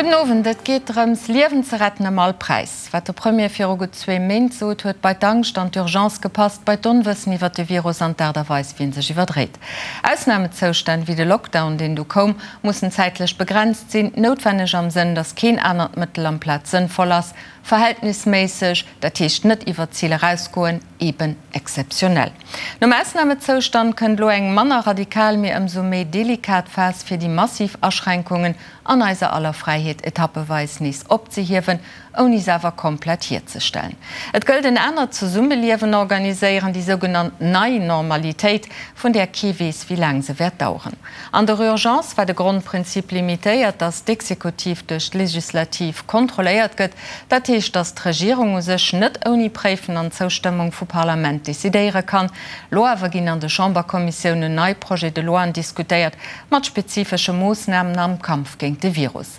Gudden Owend. Et geet drëms, Liewen ze retten ëm all Präis. Wat de Premier viru gutt zwee Méint sot, huet bei d'Angscht an d'Urgence gepasst, bei d'Onwëssen iwwer de Virus an d'Aart a Weis, wéi en sech iwwerdréit. Ausnamezoustänn, wéi de Lockdown, deen du koum, mussen zäitlech begrenzt sinn, noutwenneg am Sënn, datt keen anert Mëttel amplaz sënnvoll ass, verhältnisméisseg, dat heescht net iwwer d'Zil erausgoen, eben exzeptionell. Nom Ausnamezoustand kënnt elo eng manner radikal, mee ëmsou méi delikat Phas, fir déi massiv Aschränkungen an eiser aller Fräiheet etappeweis nees opzehiewen, ouni se awer komplett hierzestellen. Et gëllt en anert Zesummeliewen organiséieren, déi sougenannt nei Normalitéit, vun där kee weess, wéi laang se wäert daueren. An der Urgence war de Grondprinzip limitéiert, datt d'Exekutiv duerch d'Legislativ kontrolléiert gëtt. Dat heescht, datt d'Regierung u sech net ouni Préifen an Zoustëmmung vu Parlament decidéiere kann. Lo awer ginn an de Chamberkommissiounen nei Projets de loien diskutéiert, mat spezifesche Moossnamen am Kampf géint de Virus.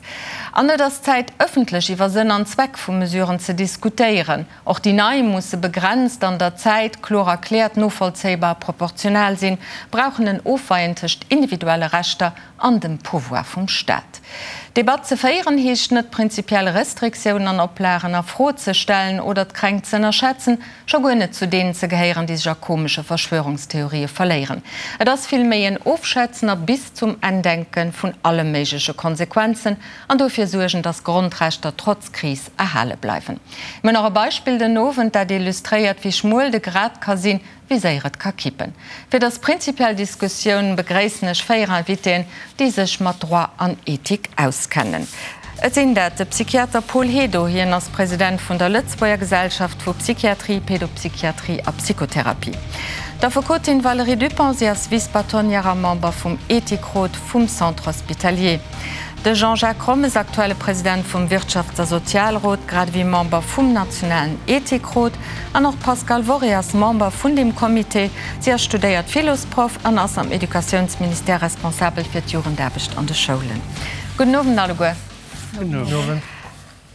An et ass Zäit, ëffentlech iwwer Sënn an Zweck vu Mesuren ze diskutéieren. Och déi nei musse begrenzt an der Zäit, kloer erkläert, novollzéibar a proportional sinn, brauchen en Ofweien tëscht individuelle Rechter an dem Pouvoir vum Staat. D'Debatt ze féieren heescht net, prinzipiell Restriktiounen an Oplagen a Fro ze stellen oder d'Kränkt z'ënnerschätzen, scho guer net zu deenen ze gehéieren, déi sech a komesche Verschwörungstheorië verléieren. Et ass villméi en Ofschätzen a bis zum Enn denke vun alle méigleche Konsequenzen an dofir suergen, dass Grondrechter trotz Kris erhale bleiwen. Mir hunn nach e Beispill den Owend, dat illustréiert, wéi schmuel de Grat ka sinn, wéi séier et ka kippen. Fir dës prinzipiell Diskussioun begréissen ech 4 Invitéen, déi sech mat Droit an Ethik auskennen. Et sinn dat de Psychiater Paul Hédo, hien ass President vun der Lëtzebuerger Gesellschaft vu Psychiatrie, Pédopsychiatrie a Psychotherapie, d'Affekotin Valérie Dupong, si ass Vice-Bâtonnière a Member vum Ethikrot vum Centre Hospitalier, De Jean-Jacques Rommes, aktuelle President vum Wirtschafts a Sozialrot, grad ewéi Member vum nationalen Ethikrot. An och d'Pascale Worré ass Member vun deem Comité. Si ass studéiert Philosproff an ass am Educatiounsministère responsabel fir d'Jugendaarbecht an de Schoulen. Gudden Owend alleguer. Gudden Owend.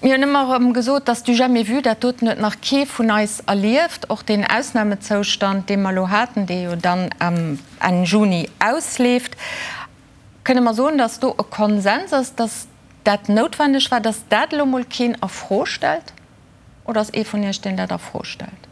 Mir hunn ëmmer erëm gesot, dass du jamais vu, dat doten huet nach kee vun eis erlieft. Och deen Ausnamezoustand, dee mer elo haten, dee jo dann Enn Juni ausleeft. Kënne mer soen, datt do e Konsens ass, datt dat noutwendeg war, datt dat elo mol keen a Fro stellt? Oder ass ee vun Iech, deen dat a Fro stellt?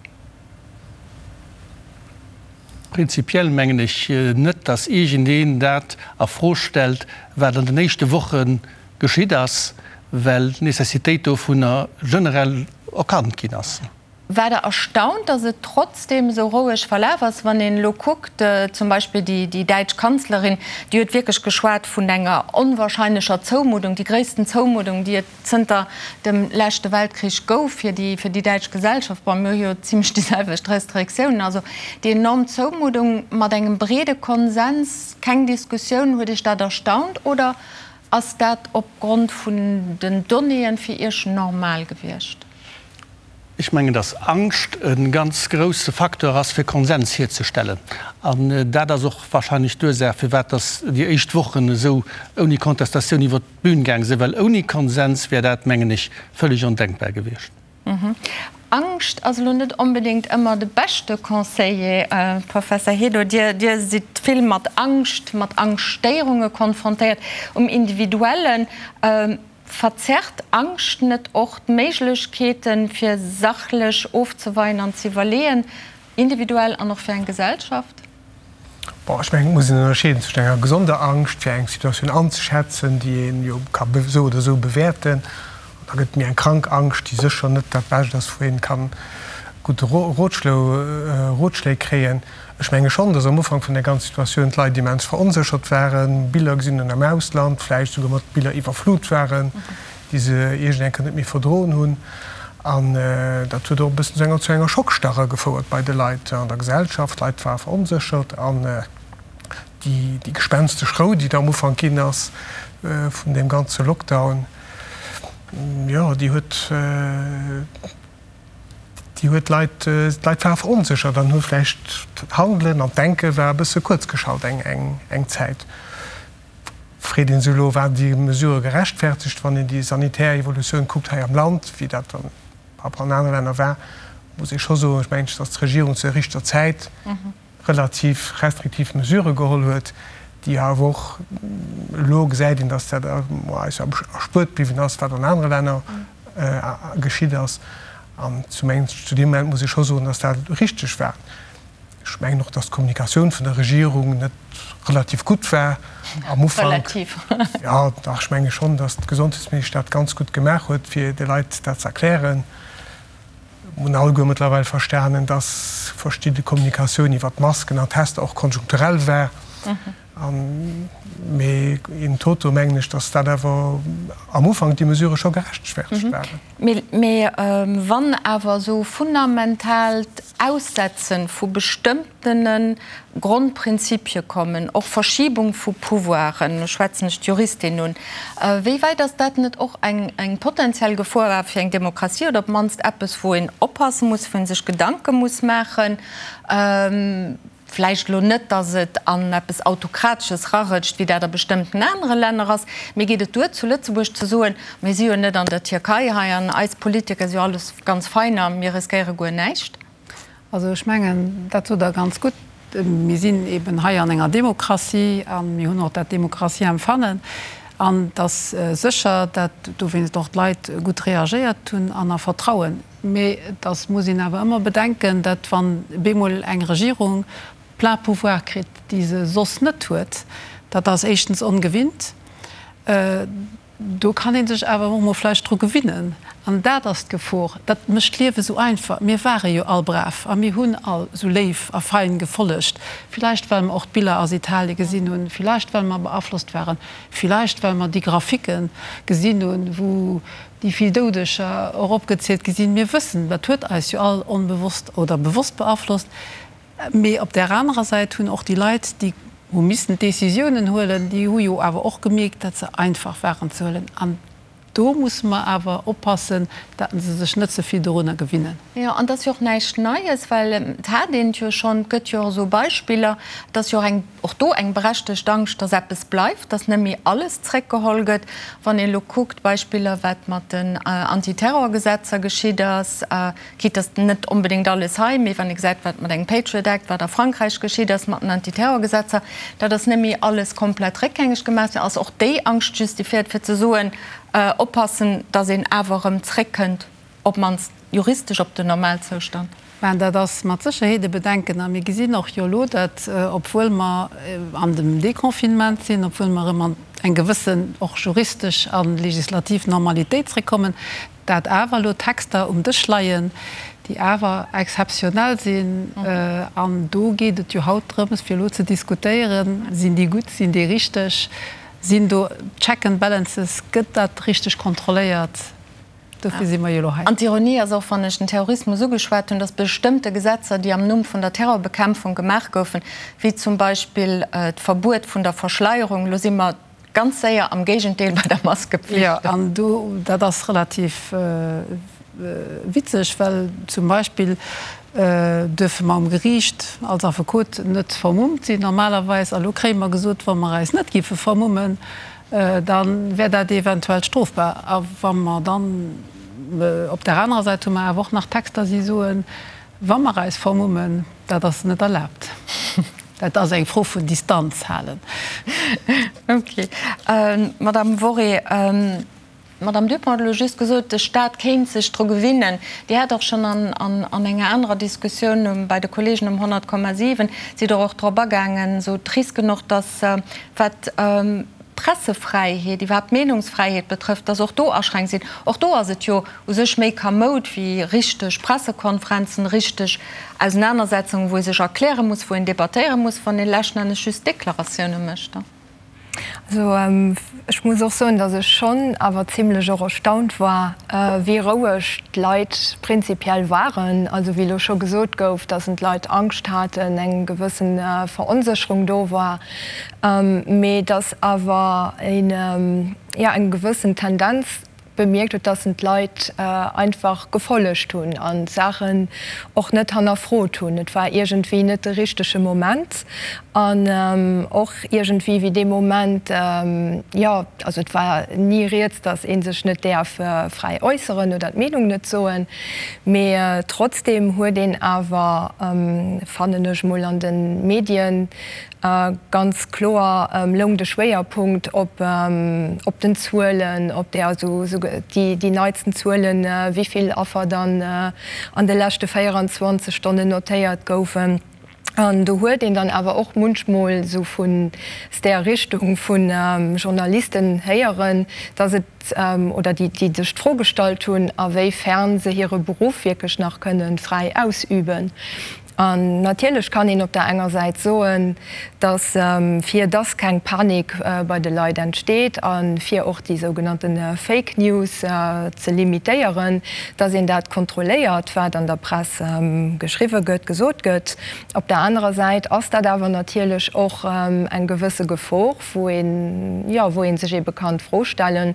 Prinzipiell mengen ech net, datt iergendeen dat a Fro stellt, wat an den éischte Woche geschitt ass, well d'Necessitéit dovunner generell erkannt ginn ass. War Der erstaunt, datt et trotzdeem esou roueg verlaf ass? Wann een elo kuckt, zum Beispill déi däitsch Kanzlerin, déi huet wierklech geschwat vun enger onwahrscheinlecher Zoumuddung, déi gréissten Zoumuddung, déi et zënter dem leschte Weltkrich gouf fir déi fir déi däitsch Gesellschaft. Bon, mir hu jo zimlech déi selwecht Restriktiounen. Also déi enorm Zoumuddung mat engem breede Konsens, keng Diskussioun. Huet Iech dat erstaunt oder ass dat opgrond vun den Donnéeën fir Iech normal gewiescht? Ech mengen, dass Angscht e ganz grousse Facteur ass, fir Konsens hierzestellen. An dat ass och wahrscheinlech d'Ursaach, firwat dass déi éischt Wochen esou ouni Kontestatioun iwwert d'Bühn gaang sinn, well ouni Konsens wär dat, mengen ech, völlig ondenkbar gewiescht. Angscht ass elo net onbedéngt ëmmer de beschte Conseiller, Professor Hédo. Dir sidd vill mat Angscht, mat Angschtstéierunge konfrontéiert um Individuellen. Verzerrt Angscht net och d'Méiglechkeeten, fir sachlech ofzeweien an ze iwwerleeën, individuell an och fir eng Gesellschaft? Bon, ech mengen, et muss een ënnerscheeden zwëschen enger gesonder Angscht, fir eng Situatioun anzeschätzen, déi een jo ka esou oder esou bewäerten, an da gëtt et méi eng krank Angscht, déi sécher net dat Bescht ass, wou een kann gutt Rotschléi kréien. Ech menge schonn, datt am Ufank vun der ganzer Situatioun d'Leit immens veronséchert waren, Biller gesinn hunn am Ausland, vläicht souguer mat Biller iwwerflut waren, déi se iergend eng Kéier net méi verdroen hunn. An dat huet och e bëssen zu enger zu enger Schockstarre gefouert bei de Leit an der Gesellschaft. D'Leit ware veronséchert an déi déi gespenstesch Rou, déi da am Ufank ginn ass vun deem ganze Lockdown, jo, déi huet, Déi huet d'Leit, d'Leit ware veronséchert an hu vläicht d'Handelen an d'Denke war e bësse kuerzgeschalt eng, eng, eng Zäit. Freet ee sech elo, Waren déi Mesurë gerechtfertegt? Wann een déi sanitär Evolutioun kuckt hei am Land, wéi dat dann par rapport an anere Länner war, muss ee scho soen, ech mengen, datt d'Regierung zur richter Zäit relativ restriktiv Mesurë geholl huet. Déi awer och, elo gesäit een, datt dat eis erspuert bliwwen ass, wat an anere Länner geschitt ass. An zu deem Moment muss ee scho soen, datt dat richteg war. Ech mengen och, datt d'Kommunikatioun vun der Regierung net relativ gutt war am Ufank. Relativ. Jo, dach, ech menge schonn, datt d'Gesondheetsministesch dat ganz gutt gemaach huet, fir de Leit dat ze erklären. Mir hunn alleguer mëttlerweil verstanen, datt verschidde Kommunikatioun iwwer d'Masken an d'Tester och konjunkturell war. Mee in toto mengen ech, datt dat awer am Ufank déi Mesurë scho gerechtfertegt waren. Mee wann awer esou fundamentaalt Aussetze vu bestëmmtene Grondprinzipie kommen, och Verschibung vu Pouvoiren, elo schwätzen ech d'Juristin un, wéi wäit ass dat net och eng potenziell Gefor awer fir eng Demokratie oder op d'mannst eppes, wou een oppasse muss, wou ee sech Gedanke muss maachen? Vläicht elo net, datt et an eppes Autokratesches rarëtscht, wéi dat a bestëmmten anere Länner ass, mee geet et duer zu Lëtzebuerg ze soen, mir si jo net an der Tierkei hei an eis Politiker si jo alles ganz fein a mir riskéiere guer näischt? Also ech mengen, dat sot Der ganz gutt. Mir sinn eben hei an enger Demokratie a mir hunn och dat Demokratieempfannen. An et ass sécher, dat dowéinst och d'Leit gutt reagéiert hunn an a Vertrauen. Mee et ass, muss een awer ëmmer bedenken, dat wann bemol eng Regierung plein pouvoir kritt, déi se soss net huet, dat ass éischtens ongewinnt, do kann ee sech awer och emol vläicht dru gewinnen. An dat ass d'Gefor. Dat mécht d'Liewe sou einfach. Mir ware jo all brav a mir hunn all sou léif a fein gefollegt, villäicht well mer och d'Biller aus Italie gesinn hunn, villäicht well mer beaflosst waren, villäicht well mer déi Graphicke gesinn hunn, wou déi vill Doudeger eropgezielt gi sinn. Mir wëssen, dat huet eis jo all onbewosst oder bewosst beaflosst. Mee op där anerer Säit hunn och déi Leit, déi hu missen d'Décisiounen huelen, déi hu jo awer och gemierkt, datt se einfach waren ze huelen. An do musse mer awer oppassen, datt se sech net ze vill dorunner gewinnen. Jo, an et ass jo och näischt Neies, well et hat een et jo schonn, et gëtt jo och esou Beispiller, et ass jo och eng, och do eng berechtegt Angscht, dass eppes bleift, dass net méi alles zréckgeholl gëtt. Wann een elo kuckt, Beispiller, wat mat den Antiterrorgesetzer geschitt ass, quitte dass net onbedéngt alles hei, mee wann ee gesäit, wat mat engem Patriot Act, wat a Frankräich geschitt ass mat den Antiterrorgesetzer, dat ass net méi alles komplett réckgängeg gemaach ginn, ass och déi Angscht justifiéiert, fir ze soen, oppassen, dass een awer erëm zréckkënnt. Op d'mannst juristesch op den Normalzoustand. Ben, dat ass mat Sécherheet e Bedenken. A mir gesinn och jo elo, datt, obwuel mer an dem Déconfinement sinn, obwuel mer erëm an eng gewëssen och juristesch a legislativ Normalitéit zréckkommen, dat awer elo Texter um Dësch leien, déi awer exzeptionell sinn. An do geet et jo haut drëms, fir elo ze diskutéieren, Sinn déi gutt, sinn déi richteg, sinn do Check and Balances, gëtt dat richteg kontrolléiert? Dofir si mer jo elo hei. An d'Ironie ass och, wann ech den Terrorismus ugeschwat hunn, dass bestëmmte Gesetzer, déi am Numm vun der Terrorbekämpfung gemaach goufen, wéi zum Beispill d'Verbuet vun der Verschleierung, elo si mer ganz séier am Géigendeel bei der Maskepflicht. Jo, an do, dat ass relativ witzeg, well zum Beispill duerfe mer um Geriicht als Affekot net vermummt sinn normalerweis. A lo kréie mer gesot, wa mer eis net géife vermummen, da wär dat eventuell strofbar. A wa mer dann, op där anerer Säit hu mer awer och nach Texter, déi soen, wa mer eis vermummen, dat ass net erlaabt. Dat ass eng Fro vun Distanz halen. Okay. Madamm Worré, D'Madame Dupont huet elo just gesot, de Stat kéint sech dru gewinnen. Dir hat och schonn an enger anerer Diskussioun bei de Kollegen um 100,7 sidd Der och drop agaangen, esou d'Risken och, dass wat d'Pressefräiheet, iwwerhaapt d'Meenungsfräiheet betrëfft, dass och do Aschränk sinn. Och do ass et jo u sech méi kamoud wéi richteg Pressekonferenzen, richteg Ausenanersetzungen, wou ee sech erkläre muss, wou een debattéiere muss, wann ee leschten Ennes just Deklaratioune mécht. Also ech muss och soen, datt ech schonn awer zimlech och erstaunt war, wéi roueg d'Leit prinzipiell waren. Also wéi elo scho gesot gouf, datt d'Leit Angscht haten, eng gewësse Veronsécherung do war, mee datt awer een, jo, eng gewëssen Tendenz bemierkt huet, dass en d'Leit einfach gefollegt hunn an d'Saachen och net hannerfrot hunn. Et war iergendwéi net de richtege Moment an och iergendwéi wéi dee Moment, jo, also et war ni rieds, dass ee sech net däerf fräi äusseren oder d'Meenung net soen, mee trotzdeem huet een awer, fannen ech mol, an de Medien. Ganz kloer loung de Schwéierpunkt op op den Zuelen, op där also déi neitsten Zuelen, wéi vill Affer dann an de leschte 24 Stonnen notéiert goufen. An do huet een dann awer och munchmol esou vun där Richtung vu Journalisten héieren, dass et, oder déi sech d'Fro gestallt hunn, a wéi fern se hire Beruff wierklech nach kënnen fräi ausüben. An natierlech kann een op der enger Säit soen, dass, fir dass keng Panik bei de Leit entsteet a fir och déi sougenannte Fake News ze limitéieren, dass een dat kontrolléiert, wat an der Press geschriwwe gëtt, gesot gëtt. Op der anerer Säit ass dat awer natierlech och eng gewësse Gefor, wou een, jo, wou ee sech eebe kann d'Fro stellen,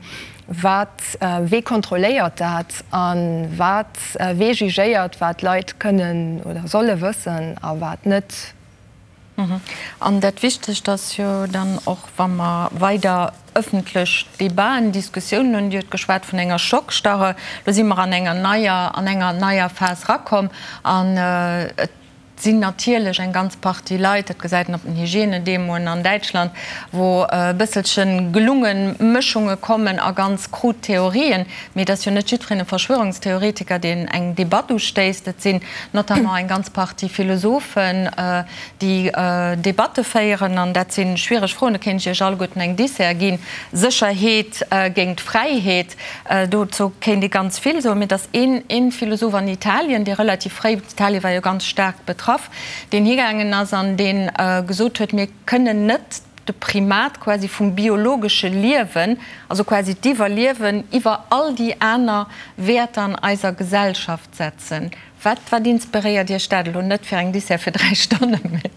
Wat, wee kontrolléiert dat a wat, wee jugéiert, wat d'Leit kënnen oder solle wëssen a wat net? An dat Wichtegst ass jo dann och, wa mer weider ëffentlech Debaten, Diskussiounen hunn, Dir hutt geschwat vun enger Schockstarre, elo si mer an enger neier, an enger neier Phas erakomm an et sinn natierlech eng ganz Partie Leit, dat gesäit een op den Hygiènedemoen an Däitschland, wou e bësselche gelunge Mëschunge kommen a ganz krud Theorien. Mee et ass jo net jiddwereen e Verschwörungstheoretiker, deen eng Debatt ustéisst. Et sinn notamment eng ganz Partie Philosophen, déi Debatte féieren. An dat si schwiereg Froen. Do kéint ech Iech alleguerten eng Dissert ginn, Sécherheet géint Fräiheet. Dozou kéint ee ganz vill soen. Mee et ass een Philosoph an Italien, dee relativ fréi, Italien war jo ganz staark betraff, deen higaangen ass an dee gesot huet, mir kënnen net de Primat quasi vum biologesche Liewen, also quasi d'Iwwerliewen, iwwer all déi aner Wäerter an eiser Gesellschaft setzen. Wat, wat inspiréiert Iech dat elo? Net fir eng Dissert fir 3 Stonnen, mee.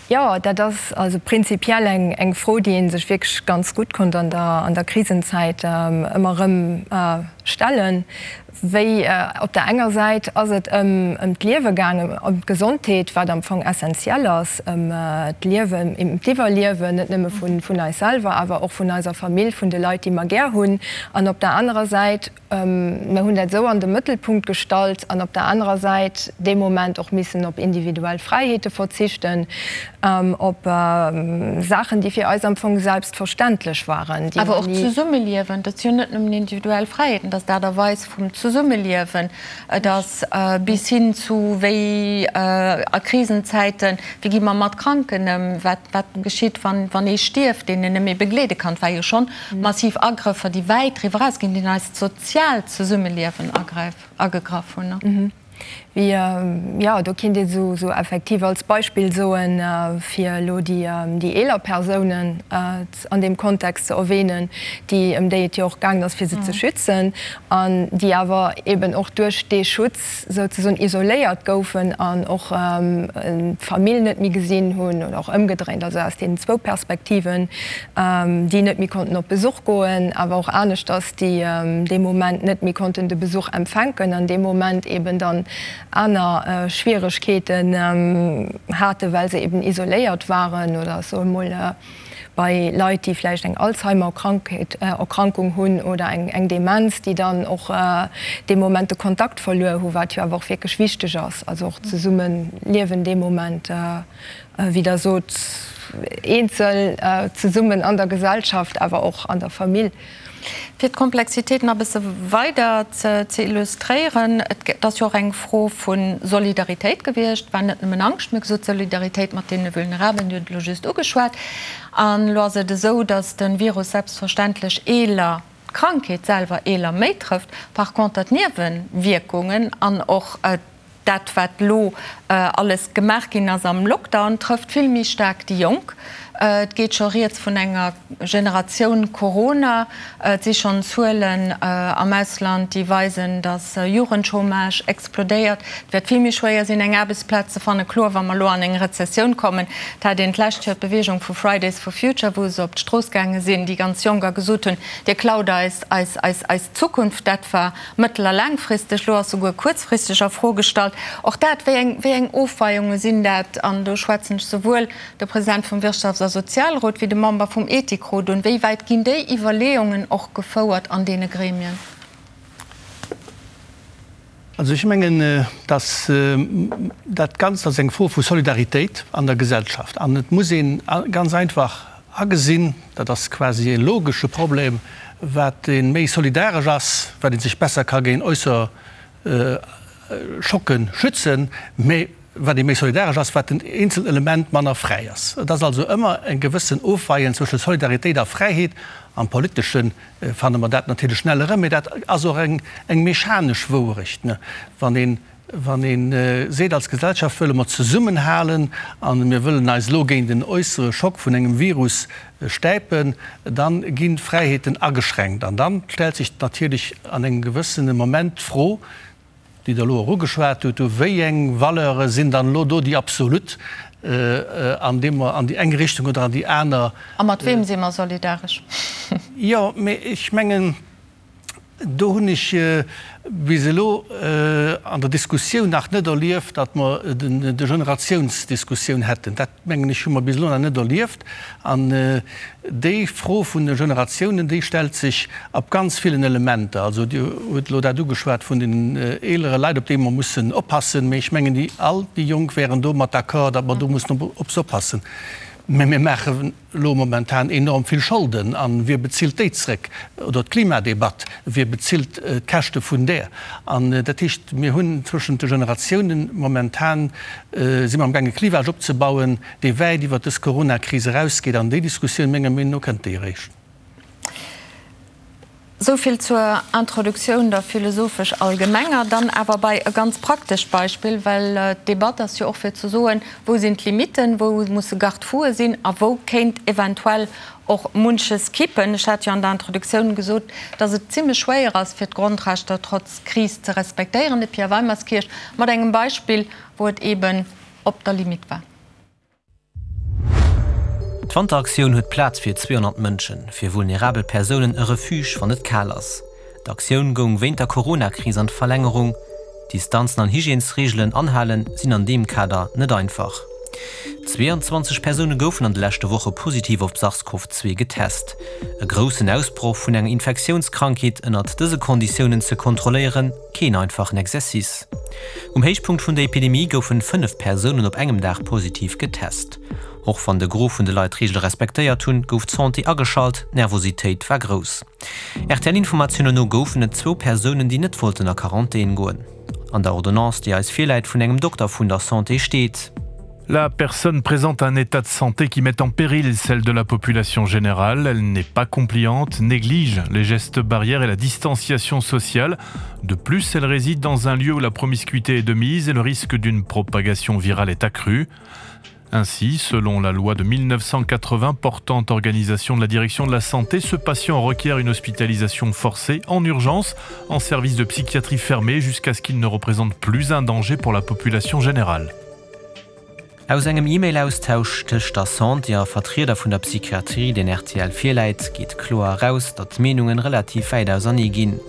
Jo, dat ass also prinzipiell eng Fro, déi ee sech wierklech ganz gutt konnt an der Krisenzäit ëmmer erëm stellen. Wéi op der enger Säit ass et ëm d'Liewe gaangen, ëm d'Gesondheet, wat am Fong essenziell ass, ëm d'Liewen, ëm d'Iwwerliewen, net nëmme vun eis selwer, awer och vun eiser Famill, vun de Leit, déi mer gär hunn. An op der anerer Säit, Mer hunn dat esou an de Mëttelpunkt gestallt an op der anerer Säit dee Moment och missen op individuell Fräiheete verzichten, op Saachen, déi fir eis am Fong selbstverständlech waren, déi mer Awer och ni. d'Zesummeliewen, dat si jo net nëmmen individuell Fräiheeten, dat ass d'Aart a Weis vum Zesummeliewen, et ass bis hin zu wéi a Krisenzäiten, wéi gi mer mat Kranken ëm, wat wat geschitt, wann wann ee stierft, deen een net méi begleede kann. Et war jo schonn massiv Agrëffer, déi wäit driwwer erausginn, déi an eist soziaalt Zesummeliewen agegraff hunn. Wéi, jo, do kinnt ee sou effektiv als Beispill soen, fir elo déi eeler Persounen an deem Kontext ze erwähnen, déi, ëm déi et jo och gaangen ass, fir se ze schützen, an déi awer eben och duerch dee Schutz souzesoen isoléiert goufen an och d'Famill net méi gesinn hunn, oder och ëmgedréint, also aus deenen zwou Perspektiven, déi net méi konnten op Besuch goen, awer och aneschters, déi dee Moment net méi konnten de Besuch empfänken an dee Moment eben dann aner Schwieregkeeten haten, well se eben isoléiert waren oder ech soe mol bei Leit, déi vläicht eng Alzheimer-Krankheet, Erkrankung hunn oder eng Demenz, déi dann och dee Moment de Kontakt verluer hu, wat jo awer och wierklech wichteg ass, also och d'Zesummeliewen dee Moment. Wéi Der sot, eenzel, zesummen an der Gesellschaft, awer och an der Famill. Fir d'Komplexitéit nach e bësse weider ze illustréieren, Et ass jo och eng Fro vu Solidaritéit gewiescht. Et war net nëmmen Angscht, mir hu gesot, Solidaritéit mat deene Vulnerabelen, Dir hutt et elo just ugeschwat. An elo ass et esou, datt de Virus selbstverständlech eeler, d'Krankheet selwer eeler méi trëfft, par conter d'Niewewierkungen an och Dat, wat elo alles gemaach ginn ass am Lockdown, trëfft vill méi staark déi Jonk. Et geet scho rieds vun enger Generatioun Corona. Et si schonn Zuelen am Ausland, déi weisen, datt Jugendchômage explodéiert. Et wäert vill méi schwéier sinn, eng Aarbechtsplaz ze fannen. Kloer, wa mer elo an eng Rezessioun kommen. Et hat een d'lescht Joer d'Beweegung vu Fridays for Future, wou se op d'Strooss gaange sinn, déi ganz Jonk, a gesot hunn, Dir klaut eis eis Zukunft. Dat war Mëttel a laangfristeg, elo ass souguer kuerzfristeg a Fro gestallt. Och dat, wéi eng, wéi eng Ofweiunge sinn dat? An do schwätzen ech souwuel de President vum Wirtschafts a Sozialrot wéi de Member vum Ethikrot un. Wéi wäit ginn déi Iwwerleeungen och gefouert an deene Gremien? Also ech mengen, dass dat Ganzt ass eng Fro vu Solidaritéit an der Gesellschaft. An et muss ee ganz einfach agesinn, dat ass quasi e logesche Problem, wat ee méi solidaresch ass, wat ee sech besser ka géint äusser Schocke schützen, mä wat ee méi solidaresch ass, wat den eenzelt Element manner fräi ass. Et ass also ëmmer e gewëssen Ofweien zwësche Solidaritéit a Fräiheet. Am Politesche fanne mer dat natierlech schnell erëm, mä dat ass och eng mechanesch Wouerecht. Wann een, wann ee seet, als Gesellschaft wëlle mer zesummenhalen a mir wëllen eis elo géint en äussere Schock vun engem Virus stäipen, da ginn d'Fräiheeten ageschränkt. An da stellt sech natierlech an engem gewëssene Moment d'Fro, déi Der elo och ugeschwat hutt, Wéi eng Valeure sinn dann elo do déi absolut, an deem mer an déi eng Richtung oder an déi aner. A mat weem si mer solidaresch? Jo, mee ech mengen, do hunn ech bis elo an der Diskussioun nach net erlieft, datt mer de Generatiounsdiskussioun hätten. Dat, mengen ech, hu mer bis elo nach net erlieft. An déi Fro vun de Generatiounen, déi stellt sech op ganz villen Elementer. Also Dir hutt elo dat ugeschwat vun den eelere Leit, op déi mer mussen oppassen. Mee ech mengen, déi all déi Jonk wären domat d'accord, datt mer do mussen op se oppassen. Mä mir maachen elo momentan enorm vill Scholden. A wie bezilt déi zréck? Oder d'Klimadebatt, wie bezilt d'Käschte vun där? An dat heescht, mir hunn zwëschent de Generatiounen momentan, si mer amgaange Clivage opzebauen, dee wäit iwwert dës Coronakris erausgeet. An déi Diskussioun, menger Meenung no, kënnt déi eréischt. Esou vill zur Introduktioun, der philosophesch allgemenger. Dann awer bei e ganz praktescht Beispill, well d'Debatt ass jo och fir ze soen, Wou sinn d'Limitten, wou musse Garde-foue sinn a wou kéint eventuell och munches kippen? Ech hat jo an der Introduktioun gesot, dass et zimlech schwéier ass, fir d'Grondrechter trotz Kris ze respektéieren. De Pierre Weimerskirch mat engem Beispill, wou et eeben op der Limite war. D'Wanteraktioun huet Plaz fir 200 Mënschen, fir vulnerabel Persounen e Refuge, wann et kal ass. D'Aktioun goung wéint der Corona-Kris an d'Verlängerung. Distanzen an Hygiènesreegelen anhalen sinn an deem Kader net einfach. 22 Persoune goufen an de leschte Woche positiv op SARS-CoV-2 getest. E groussen Ausbroch vun enger Infektiounskrankheet ënnert dëse Konditiounen ze kontrolléieren, keen einfachen Exercice. Um Héichpunkt vun der Epidemie goufen 5 Persounen op engem Dag positiv getest. Och wann de Gros vun de Leit d'Reegele respektéiert hunn, gouf d'Santé ageschalt, d'Nervositéit war grouss. RTL-Informatiounen no goufen et zwou Persounen, déi net wollten a Quarantän goen. An der Ordonnance, déi eis virläit vun engem Dokter vun der Santé steet. La personne présente un état de santé qui met en péril celle de la population générale. Elle n'est pas compliante, néglige les gestes barrières et la distanciation sociale. De plus, elle réside dans un lieu où la promiscuité est de mise et le risque d'une propagation virale est accru. Ainsi, selon la loi de 1980 portant organisation de la direction de la santé, ce patient requiert une hospitalisation forcée en urgence en service de psychiatrie fermé jusqu'à ce qu'il ne représente plus un danger pour la population générale. Aus engem E-Mail-Austausch tëscht der Santé a Vertrieder vun der Psychiatrie, deen rtl virläit, geet kloer eraus, datt d'Meenungen relativ wäit ausernee ginn.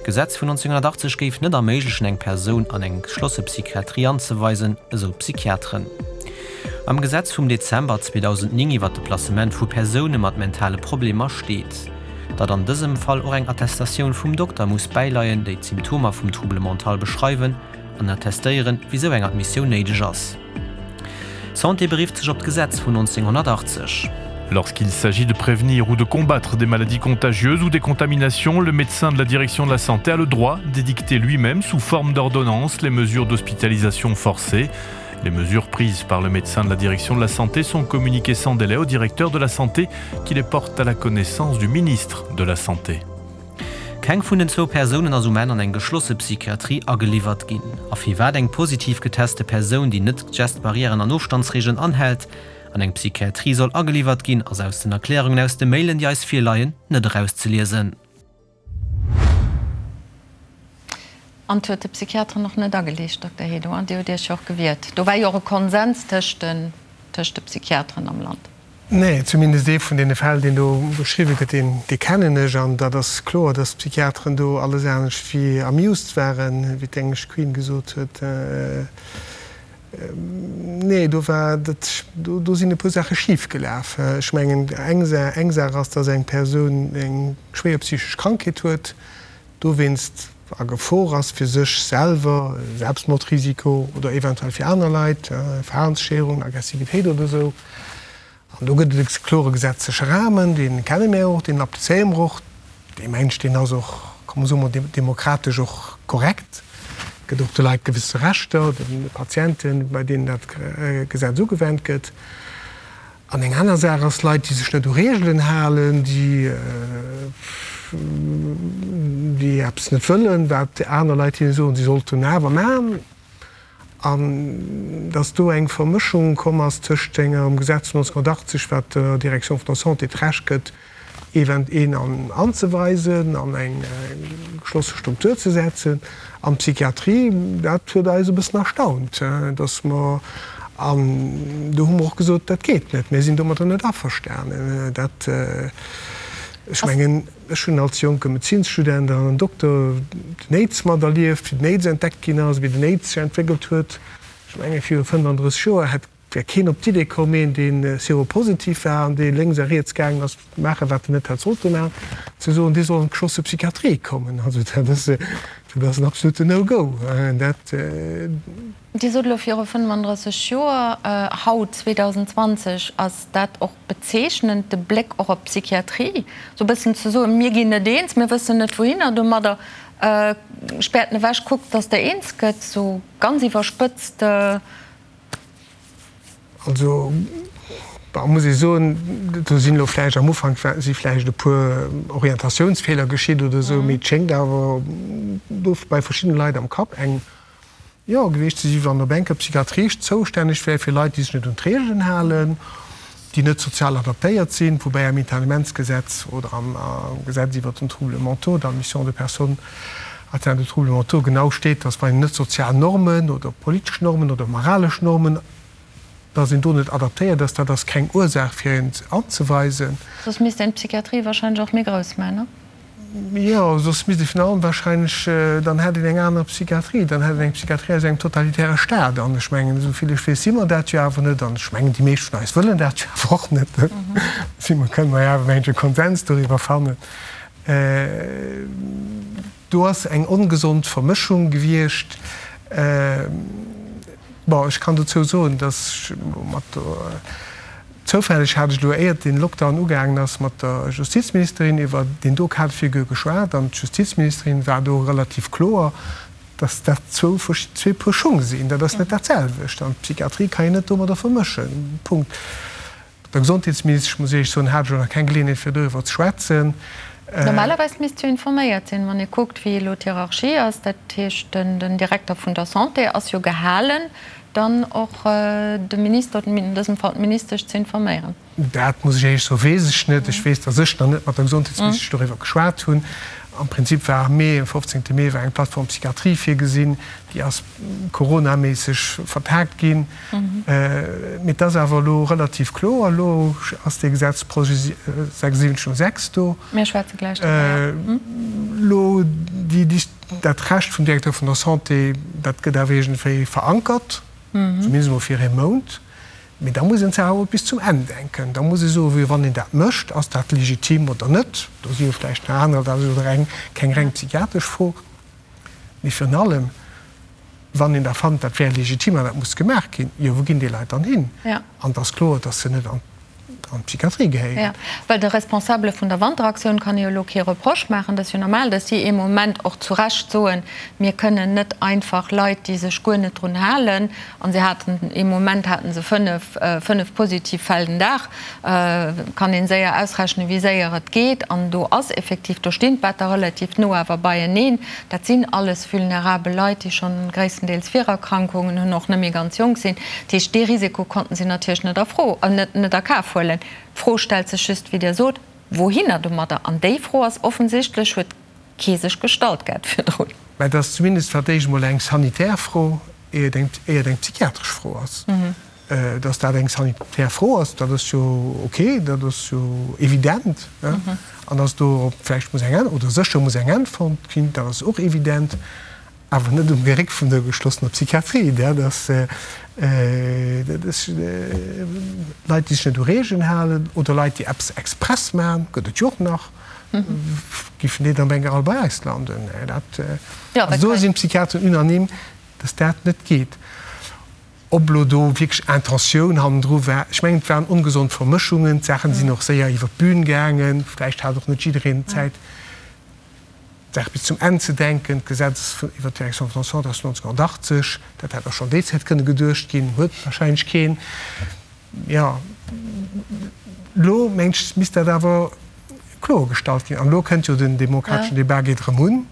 D'Gesetz vun 1980 géif net erméiglechen, eng Persoun an eng geschlosse Psychiatrie anzeweisen, esou d'Psychiateren. Am Gesetz vum Dezember 2009 iwwer de Placement vu Persoune mat mentale Problemer steet, datt an dësem Fall och eng Attestatioun vum Dokter muss bäileien, déi d'Symptomer vum Trouble mental beschreiwen an attestéieren, wisou eng Admissioun néideg ass. D'Santé berifft sech op d'Gesetz vun 1980. Lorsqu'il s'agit de prévenir ou de combattre des maladies contagieuses ou des contaminations, le médecin de la direction de la santé a le droit d'édicter lui-même sous forme d'ordonnance les mesures d'hospitalisation forcée. Les mesures prises par le médecin de la direction de la santé sont communiquées sans délai au directeur de la santé qui les porte à la connaissance du ministre de la santé. Keng vun den zwou Persounen ass um Enn an eng geschlosse Psychiatrie ageliwwert ginn. A firwat eng positiv geteste Persoun, déi net d'Gestbarrièren an Ofstandsreegelen anhält, an eng Psychiatrie soll ageliwwert ginn, ass aus den Erklärungen aus de Mailen, déi eis virleien, net erauszeliesen. An et huet de Psychiateren och net ageliicht, Dokter Hédo, Dir hutt Iech jo och gewiert. Do war jo och e Konsens tëscht de Psychiateren am Land. Nee, zumindest ee vun deene Fäll, deen do beschriwwe gëtt, deen, dee kennen ech. An dat ass kloer, datt d'Psychiateren do alles anescht wéi amused waren, wéi d'englesch Queen gesot huet. Nee, do war dat, do, do sinn e puer Saache schif gelaf. Ech mengen, eng Sa, eng Saach ass, datt eng Persoun eng schwéier psychesch Krankheet huet, dowéinst. a Gefor ass fir sech selwer, Selbstmordrisiko, oder eventuell fir aner Leit, Verhalensstéierung, Aggressivitéit oder esou. An do gëtt et e klore gesetzleche Rahmen, dee kenne mir och, deen applizéiere mer och. Dee mengt, deen ass och, komm soe mer, demokratesch och korrekt, gëtt och de Leit gewësse Rechter, de Patienten, bei deenen dat Gesetz ugewennt gëtt. An eng aner Saach ass, Leit, déi sech net u Reegelen halen, déi, déi eppes net wëllen, wat aner Leit hinne soen, si sollten awer maachen. An dass do eng Vermëschung komm ass tëscht engem Gesetz vun 1980, wat der Direction vun der Santé d'Recht gëtt, event. Een anzeweisen, an eng geschlosse Struktur ze setzen, an d'Psychiatrie, dat huet eis e bëssen erstaunt, dass mer, an do hu mer och gesot, dat geet net, mir sinn domadder net averstanen. Dat, ech mengen, Ech hunn als jonke Medezinsstudent an Dokter den Aids materlieft, wéi den Aids entdeckt ginn ass, wéi den Aids sech entwéckelt huet. Ech menge viru 35 Joer hätt wär keen op d'Idee komm, een dee seropositiv war an dee lénks a riets gaangen ass maachen, wat en net hätt sollte maachen, ze soen, dee soll an d'geschlosse Psychiatrie kommen. Also dat ass, dat ass en absoluten No-Go. Dat. Dir sot elo viru 35 Joer, haut 2020 ass dat och bezeechnend, de Bléck och op d'Psychiatrie, esou e bëssen ze soen, mir ginn net eens, mir wëssen net wouhinner domadder, späert en ewech, kuckt, datt Der eens gëtt, esou ganz iwwerspëtzt. Also, bon, muss ee soen, do sinn elo vläicht am Ufank si vläicht e puer Orientatiounsfeeler geschitt oder esou, mee et schéngt awer do bei verschiddene Leit am Kapp eng, jo, gewiescht ze si wann op enker d'Psychiatrie zoustänneg wär fir Leit, déi sech net un d'Reegelen halen, déi net sozial adaptéiert sinn, woubäi am Internementsgesetz oder am Gesetz iwwert den Troubles mentaux, d'admission de personnes atteintes de troubles mentaux, genau steet, dass wann een net sozial Normen oder politesch Normen oder moralesch Normen, dass een do net adaptéiert ass, dat ass keng Ursaach fir een anzeweisen. Soss misst een d'Psychiatrie wahrscheinlech och méi grouss maachen, ne? Jo, soss misst ee virun allem wahrscheinlech, dann hätt een eng aner Psychiatrie, dann hätt een eng Psychiatrie aus engem totalitäre Staat. An ech mengen, esou vill ech weess, si mer dat jo awer net. An ech mengen, déi meescht vun eis wëllen dat jo awer och net. Si mer, kënne mer jo awer, mengen ech, e Konsens doriwwer fannen. Do ass eng ongesond Vermëschung gewiescht. Bon, ech kann dozou soen, dass ech mat der, zoufälleg hat ech elo, éiert dee Lockdown ugaangen ass, mat der Justizministerin iwwer deen do Cas de figure geschwat an d'Justizministerin war do relativ kloer, dass dat zwou zwee Puer Schung sinn. Dat ass net dat selwecht an d'Psychiatrie kann een net domadder vermëschen. Punkt. Mat der Gesondheetsministesch, muss ech Iech soen, hat ech elo nach keng Geleeënheet fir doriwwer ze schwätzen. Normalerweis misst jo informéiert sinn, wann ee kuckt, wéi elo d'Hierarchie ass. Dat heescht, den Direkter vun der Santé ass jo gehalen, dann och de Minister, an dësem Fall d'Ministesch, ze informéieren. Dat muss ech Iech soen, weess ech net. Ech weess, datt ech nach net mat der Gesondheetsministesch doriwwer geschwat hunn. Am Prinzip war am Mee, am 15. Mee war eng Plateforme Psychiatrie virgesinn. Déi ass coronaméisseg vertaagt ginn. Mee et ass awer elo relativ kloer, elo ass dee Gesetzprojet 7606 do. Mir schwätze gläich driwwer, jo. Elo déi, dat Recht vum Directeur vun der Santé, dat gëtt awer iergendwéi verankert, zumindest emol fir ee Mount. Mee da muss een d'Saach awer bis zum Enn denken. Da muss ee soen, wéi wann een dat mécht, ass dat legitim oder net? Do si jo vläicht nach anerer, dat ass elo reng, keng reng psychiatresch Fro. Mee virun allem, wann een da fannt, dat wär legitim an dat muss gemaach ginn, jo, wou ginn déi Leit dann hin? An et ass kloer, dass se net an d'Psychiatrie gehéieren. Jo, well de Responsabele vun der Wanteraktioun kann ee jo elo kee Reproche maachen. Dat ass jo normal, dass si ee Moment och zu Recht soen, mir kënnen net einfach Leit, déi sech guer net drun halen, an se haten ee Moment hate se fënnef positiv Fäll den Dag, kann een séier ausrechnen, wéi séier et geet. An do ass effektiv, do stinn d'Better relativ no awer beieneen. Dat sinn alles vulnerabel Leit, déi schonn gréisstendeels Virerkrankungen hunn, och net méi ganz jonk sinn. Dat heescht, dee Risiko konnten si natierlech net a Fro, net a Kaf huelen. D'Fro stellt sech just, wéi Dir sot, Wouhinner domadder? An déi Fro ass offensichtlech, huet kee sech gestallt gehat virdrun. Mä et ass zumindest fir d'éischt emol eng sanitär Fro, ier et eng psychiatresch Fro ass. Dass dat eng sanitär Fro ass, dat ass jo ok, dat ass jo evident. An dass dorop vläicht muss eng Äntwert, oder sécher muss eng Äntwert fonnt ginn, dat ass och evident, awer net um Geréck vun der geschlossener Psychiatrie. Dat ass, dat ass Leit, déi sech net u Regeln halen oder Leit, déi eppes express maachen, gëtt et jo och nach. Giffen déi dann op eng Kéier all bei eis landen? Dat, also do sinn d'Psychiateren unanime, dass dat net geet. Ob elo do wierklech Intentioun hannendru war, ech mengen, et waren ongesond Vermëschungen, d'Saachen sinn och séier iwwer d'Bün gaangen, vläicht hat och net jiddereen Zäit, d'Saach bis zum Enn ze denken. D'Gesetz iwwert d'Direction vun der Santé ass 1980, dat hätt och schonn déi Zäit kënne geduecht ginn, huet wahrscheinlech keen. Jo, elo mengen ech, misst dat awer kloergestallt ginn. An elo kënnt jo den demokrateschen Debat geet erëm un.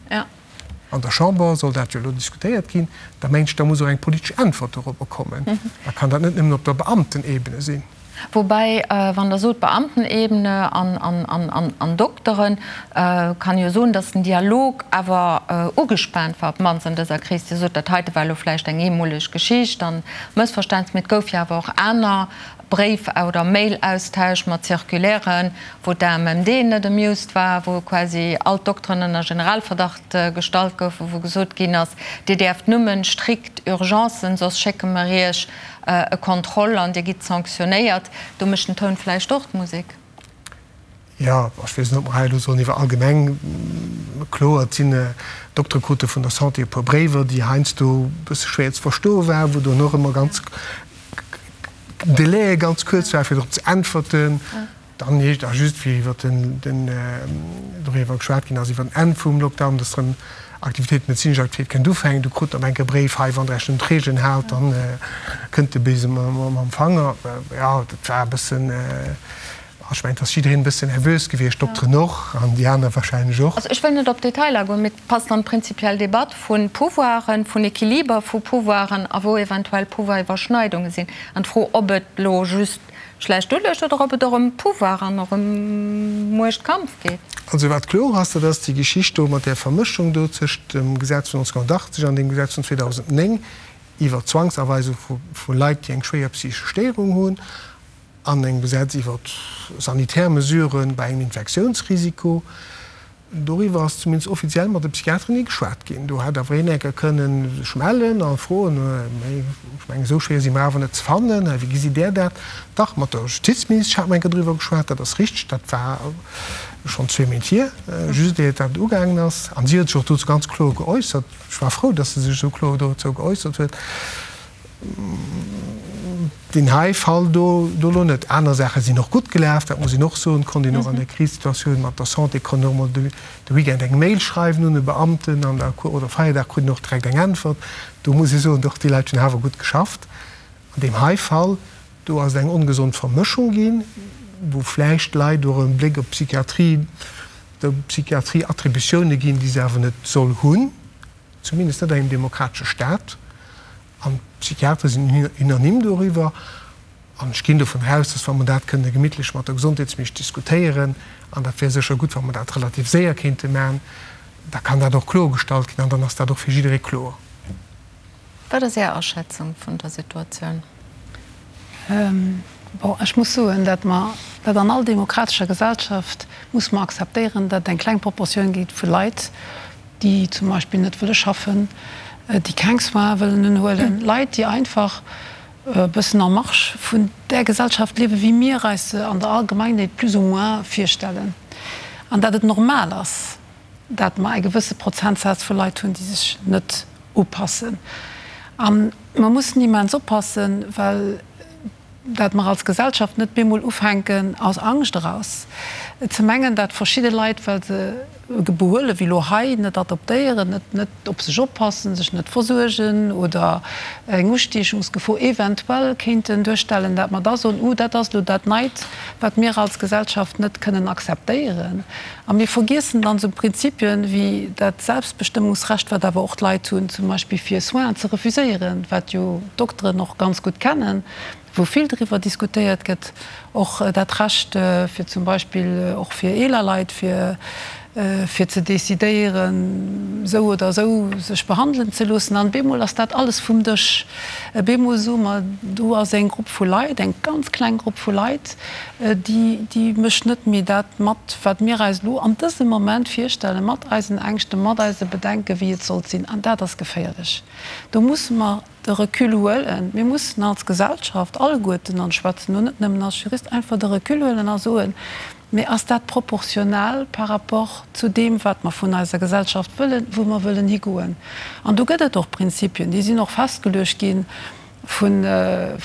An der Chamber soll dat jo elo diskutéiert ginn. Da mengen ech, da muss och eng politesch Äntwert dorobber kommen. Da kann dat net nëmmen op der Beamtenebene sinn. Woubäi, wann Der sot Beamtenebene an Dokteren, kann ee jo soen, datt den Dialog awer ugespaant war, op d'mannst an dëser Kris. Dir sot, dat heite war elo vläicht eng eemoleg Geschicht an Mëssverständnis, mee et gouf jo awer och aner Bréif oder Mail-Austausch mat Circulairen, wou d'AMMD net amused war, wou quasi all d'Dokteren ënner Generalverdacht gestallt goufen, wou gesot ginn ass, Dir däerft nëmmen strikt Urgencen, soss schécke mer Iech e Contrôle an Dir gitt sanctionnéiert. Do mécht den Toun vläicht och d'Musek. Jo, ech weess net, ob mer hei elo sollen iwwer allgemeng, kloer, et sinn Doktere krute vun der Santé e puer Bréiwer, déi heiansdo e bësse schwéier ze verstoe waren, wou dann och ëmmer ganz Délaië ganz kuerz waren, fir drop ze äntwerten. Dann heescht a just wéi iwwer den, den doriwwer geschwat ginn ass, iwwer den Enn vum Lockdown, dass erëm Aktivitéit, medezinesch Aktivitéit kënnt ufänken, du krut op enk e Bréif, hei, wann Der Iech net un d'Reegelen haalt, dann kënnt de Besen mam Fanger. Jo, dat war e bëssen. Ech mengen, et ass jiddereen e bëssen nervös gewiescht, d'Dokteren och an déi aner wahrscheinlech och. Also ech wëll net op Detailer agoen, mee et passt an d'prinzipiell Debatt vu Pouvoiren, vun Equiliber vu Pouvoiren a wou eventuell Pouvoiriwwerschneidunge sinn. An d'Fro, ob et elo just schlecht uluecht oder ob et och ëm Pouvoir an och ëm Muechtkampf geet. Also wat kloer ass, dat ass déi Geschicht do mat där Vermëschung do tëscht dem Gesetz vun 1980 an deem Gesetz vun 2009 iwwer d'Zwangsaweisung vu Leit, déi eng schwéier psychesch Stéierung hunn, An engem Gesetz iwwer sanitär Mesurë bei engem Infektiounsrisiko, doriwwer ass zumindest offiziell mat de Psychiateren ni geschwat ginn. Do hätt awer een enker kënnen sech mellen a froen, mee ech mengen, esou schwéier si mer awer net ze fannen, wéi gesitt Där dat? Dach, mat der Justizministesch hat mer enker driwwer geschwat, dat ass richteg, dat war schonn zwee Méint hier, just iert dat ugaangen ass. An si huet sech och dozou ganz kloer geäussert. Ech war frou, datt se sech esou kloer dozou geäussert huet. Deen hei Fall do do elo net. Aner Saache sinn och gutt gelaf, dat muss een och soen. Konnt een och an der Krisesituatioun mat der Santé konnt een och mol de Weekend eng Mail schreiwen un e Beamten an da oder Feierdag krut een och direkt eng Äntwert. Do muss ee soen, doch déi Leit hunn awer gutt geschafft. An deem hei Fall do ass et eng ongesond Vermëschung ginn, wou vläicht Leit och e Bléck op d'Psychiatrie, der Psychiatrie Attributioune ginn, déi se awer net soll hunn. Zumindest net an engem demokratesche Staat. An d'Psychiatere sinn unanime doriwwer. An ech ginn dovun aus, dass, wa mer dat kënne gemittlech mat der Gesondheetsministesch diskutéieren, an dat wär sécher gutt, wa mer dat relativ séier kéinte maachen, da kann dat och kloergestallt ginn an dann ass dat och fir jidderee kloer. Wat ass Är Aschätzung vun der Situatioun? Bon, ech muss soen, dat mer, dat an all demokratescher Gesellschaft muss mer akzeptéieren, dat et eng kleng Proportioun gétt vu Leit, déi zum Beispill net wëlle schaffen, déi keng Soins wëllen unhuelen, Leit, déi einfach e bëssen en marge vun där Gesellschaft liewen, wéi mir eis se an der Allgemeinheet plus ou moins virstellen, an dat et normal ass, dat mer e gewësse Prozentsaz vu Leit hunn, déi sech net upassen. A mer mussen immens oppassen, well dat mer als Gesellschaft net bemol ufänken, aus Angscht eraus ze mengen, dat verschidde Leit, well se e Behuele wéi elo hei net adoptéieren, net net op sech oppassen, sech net versuergen oder eng Ustiechungsgefor eventuell kéinten duerstellen, dat mer da soen, Uh, dat ass elo dat Neit, wat mir als Gesellschaft net kënnen akzeptéieren. A mir vergiessen dann esou Prinzipien wéi dat Selbstbestëmmungsrecht, wat awer och d'Leit hunn, zum Beispill fir Soinen ze refuséieren, wat jo d'Dokteren och ganz gutt kennen, wou vill driwwer diskutéiert gëtt, och dat Recht fir zum Beispill och fir eeler Leit, fir fir ze decidéieren, esou oder esou sech behandelen ze loossen. An bemol ass dat alles vum Dësch. Bemol soe mer, do ass eng Grupp vu Leit, eng ganz kleng Grupp vu Leit, déi déi mécht net méi dat mat, wat mir eis elo an dësem Moment virstellen, mat eisen Ängschten, mat eise Bedenken, wéi et sollt sinn. An dat ass geféierlech. Do musse mer de Recul huelen. Mir mussen als Gesellschaft alleguerten, an ech schwätzen elo net nëmmen als Jurist, einfach de Recul huelen a soen, Mee ass dat proportional par rapport zu deem, wat mer vun eiser Gesellschaft wëllen, wou mer wëllen higoen? An do gëtt et och Prinzipien, déi sinn och festgeluecht gi vun,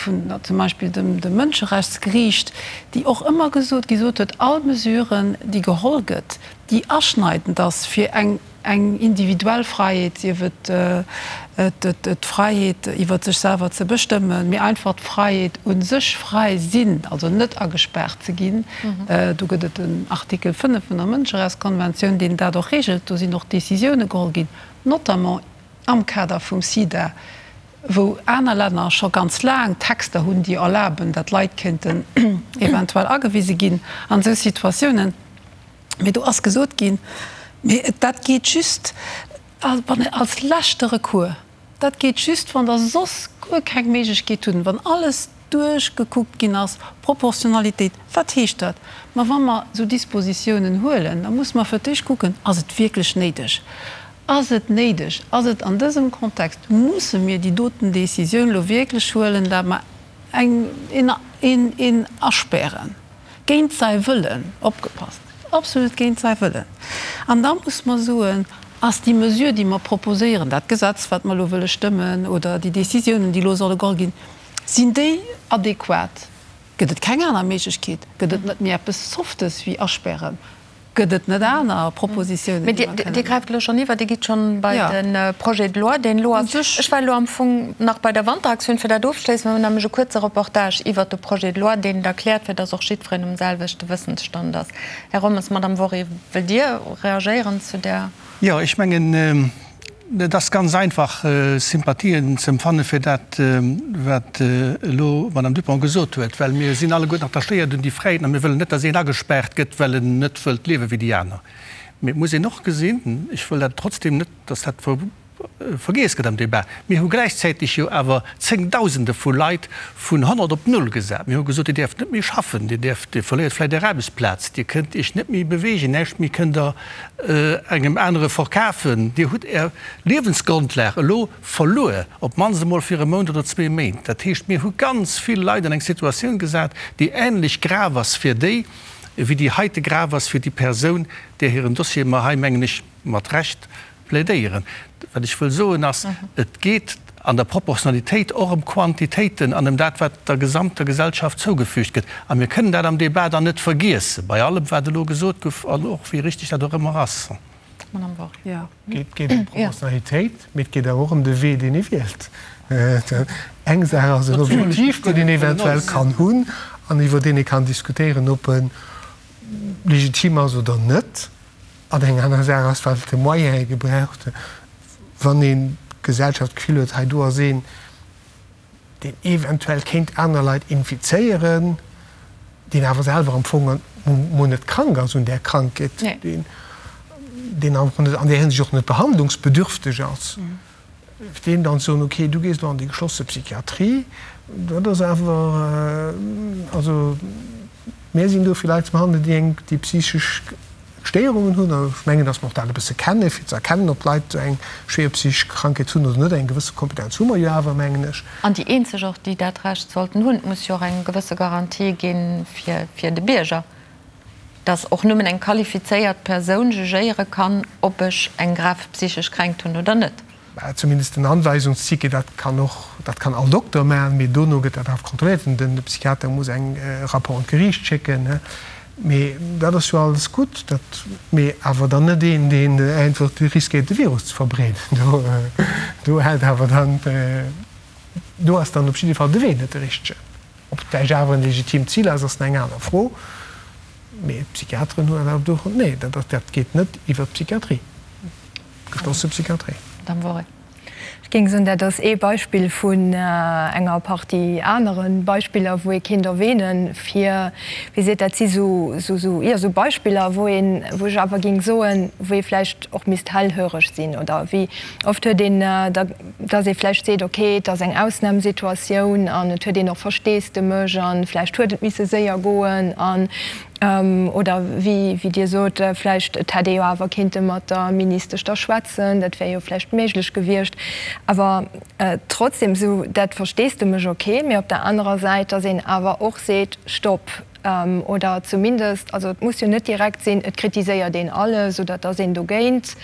vun zum Beispill dem, dem Mënscherechtsgeriicht, déi och ëmmer gesot, gesot huet, all Mesure, déi geholl gëtt, déi aschneidend ass fir eng, Eng individuell Fräiheet, sief et d'Fräiheet iwwer sech selwer ze bestëmmen, mee einfach d'Fräiheet u sech, fräi sinn, also net agespaart ze ginn. Do gëtt et den Artikel 5 vun der Mënscherechtskonventioun, deen dat och reegelt. Do sinn och Décisioune geholl ginn, notamment am Kader vum SIDA, wou aner Länner scho ganz laang Texter hunn, déi erlaben, datt Leit kéinten eventuell agewise ginn an esou Situatiounen. Mee do ass gesot ginn, mee dat geet just wann als leschte Recours, dat geet just wann Der soss guer keng Méiglechkeet hutt, wann alles duerchgekuckt ginn ass, Proportionalitéit. Wat heescht dat? Ma wa mer esou Dispositiounen huelen, da musse mer fir d'éischt kucken, Ass et wierklech néideg? Ass et néideg? Ass et an dësem Kontext, musse mir déi doten Décisioun elo wierklech huelen, dat mer eng, een, een, een aspären? Géint säi Wëllen, opgepasst, absolut géint säi Wëllen. An da muss mer soen, Ass déi Mesure, déi mer proposéieren, dat Gesetz, wat mer elo wëlle stëmmen, oder déi Décisiounen, déi elo solle geholl ginn, sinn déi adequat? Gëtt et keng aner Méiglechkeet? Gëtt et net méi eppes Softes wéi aspären? Gëtt et net aner Propositiounen, déi mer kënnen. Dir gräift elo schonn iwwer, Dir gitt schonn bei de Projet de loi, deen elo ass. Ech war elo am Fong nach bei der Wanteraktioun, fir dat ofzeschléissen. Mir hunn nämlech e kuerze Reportage iwwert de Projet de loi, deen et erkläert, fir dass och jiddwereen um selwechte Wëssensstand ass. Här Rommes, Madame Wory, wëllt Dir reagéieren zu där? Jo, ech mengen, Et ass ganz einfach, Sympathien ze empfanne fir dat, wat elo d'Madame Dupong gesot huet, well mir sinn alleguerten attachéiert un déi Fräiheeten a mir wëllen net, datt een agespaart gëtt, well en net wëllt liewe wéi déi aner. Mee et muss een och gesinn, ech wëll dat trotzdem net, datt dat vergiess gëtt am Débat, mir hu gläichzäiteg jo awer Zéngdausende vu Leit vun 100 op null gesat. Mir hu gesot, Dir däerft net méi schaffen, Dir däerft, Dir verléiert vläicht Är Aarbechtsplaz, Dir kënnt Iech net méi beweegen, näischt méi kënnt Der engem anere verkafen, Dir hutt Är Liewensgrondlag elo verluer, op d'mannst emol fir e Mount oder zwee Méint. Dat heescht, mir hu ganz vill Leit an eng Situatioun gesat, déi änlech grav ass fir déi, wéi déi heite grav ass fir déi Persoun, där hiren Dossier mer hei, mengen ech, mat Recht plädéieren. Wat ech wëll soen ass, et geet an der Proportionalitéit och ëm Quantitéiten an ëm dat, wat der gesamter Gesellschaft zougefügt gëtt. A mir kënnen dat am Débat dann net vergiessen, bei allem, wat elo gesot gouf an och wéi richtig dat och ëmmer ass. Madame Wory. Et geet ëm d'Proportionalitéit, mee et geet awer och ëm de Wee, deen ee wielt. Eng Saach ass en Objektiv, deen een eventuell kann hunn an iwwer deen ee kann diskutéieren, ob e legitim ass oder net. An eng aner Saach ass, wat fir Moyene gebraucht, wann een d'Gesellschaft d'Gefill huet, hei do ass een, deen eventuell kéint aner Leit infizéieren, deen awer selwer am Fong mol net krank ass un där Krankheet, deen an där Hinsicht och net behandlungsbedürfteg ass. Deem dann ze soen, okay, du gees elo an déi geschlosse Psychiatrie, dat ass awer, also mir sinn do fir Leit ze behandelen, déi eng, déi psychesch Stéierungen hunn. An ech mengen, datt mer och dat e bësse kennen, fir ze erkennen, ob d'Leit eng schwéier psychesch Krankheet hunn oder net. Eng gewësse Kompetenz hu mer jo awer, mengen ech. An déi eenzeg och, déi dat Recht sollten hunn. Et muss jo och eng gewësse Garantie gi fir de Bierger. dass och nëmmen eng qualifizéiert Persoun jugéiere kann, ob ech eng grav psychesch Kränkt hunn oder net. Mä zumindest den Anweisungsticket, dat kann och, dat kann all Dokter maachen, mee dono gëtt dat awer kontrolléiert an den Psychiater muss eng Rapport un d'Geriicht schécken. Mee dat ass jo alles gutt, dat, mee awer dann net een, deen einfach riskéiert de Virus ze verbreeden. Do, do hält awer dann, do ass dann op jidde Fall de Wee net de richtegen. Ob et vläicht awer en legitimt Zil ass, ass eng aner Fro. Mee d'Psychiateren hunn awer do, nee, dat dat geet net iwwert d'Psychiatrie, d'geschlosse Psychiatrie. Madame Wory. Ech géing soen, dat ass ee Beispill vun enger Partie anere Beispiller, wou ee kéint erwähnen, fir, wéi seet, dat si sou, sou, jo, sou Beispiller, wou een, wou ech awer géing soen, wou ee vläicht och misst hellhöreg sinn oder wéi oft huet een da, dass ee vläicht seet, ok, et ass eng Ausnamsituatioun an et huet een och Versteesdemech an vläicht huet et misse séier goen an, oder wéi Dir sot, vläicht et hätt ee jo awer kéinte mat der Ministesch da schwätzen, dat wär jo vläicht méiglech gewiescht. Awer trotzdem esou dat Versteesdemech, ok, mee op der anerer Säit, dass een awer och seet, Stopp! Oder zumindest, also et muss jo net direkt sinn, et kritiséiert een alles oder et ass een dogéint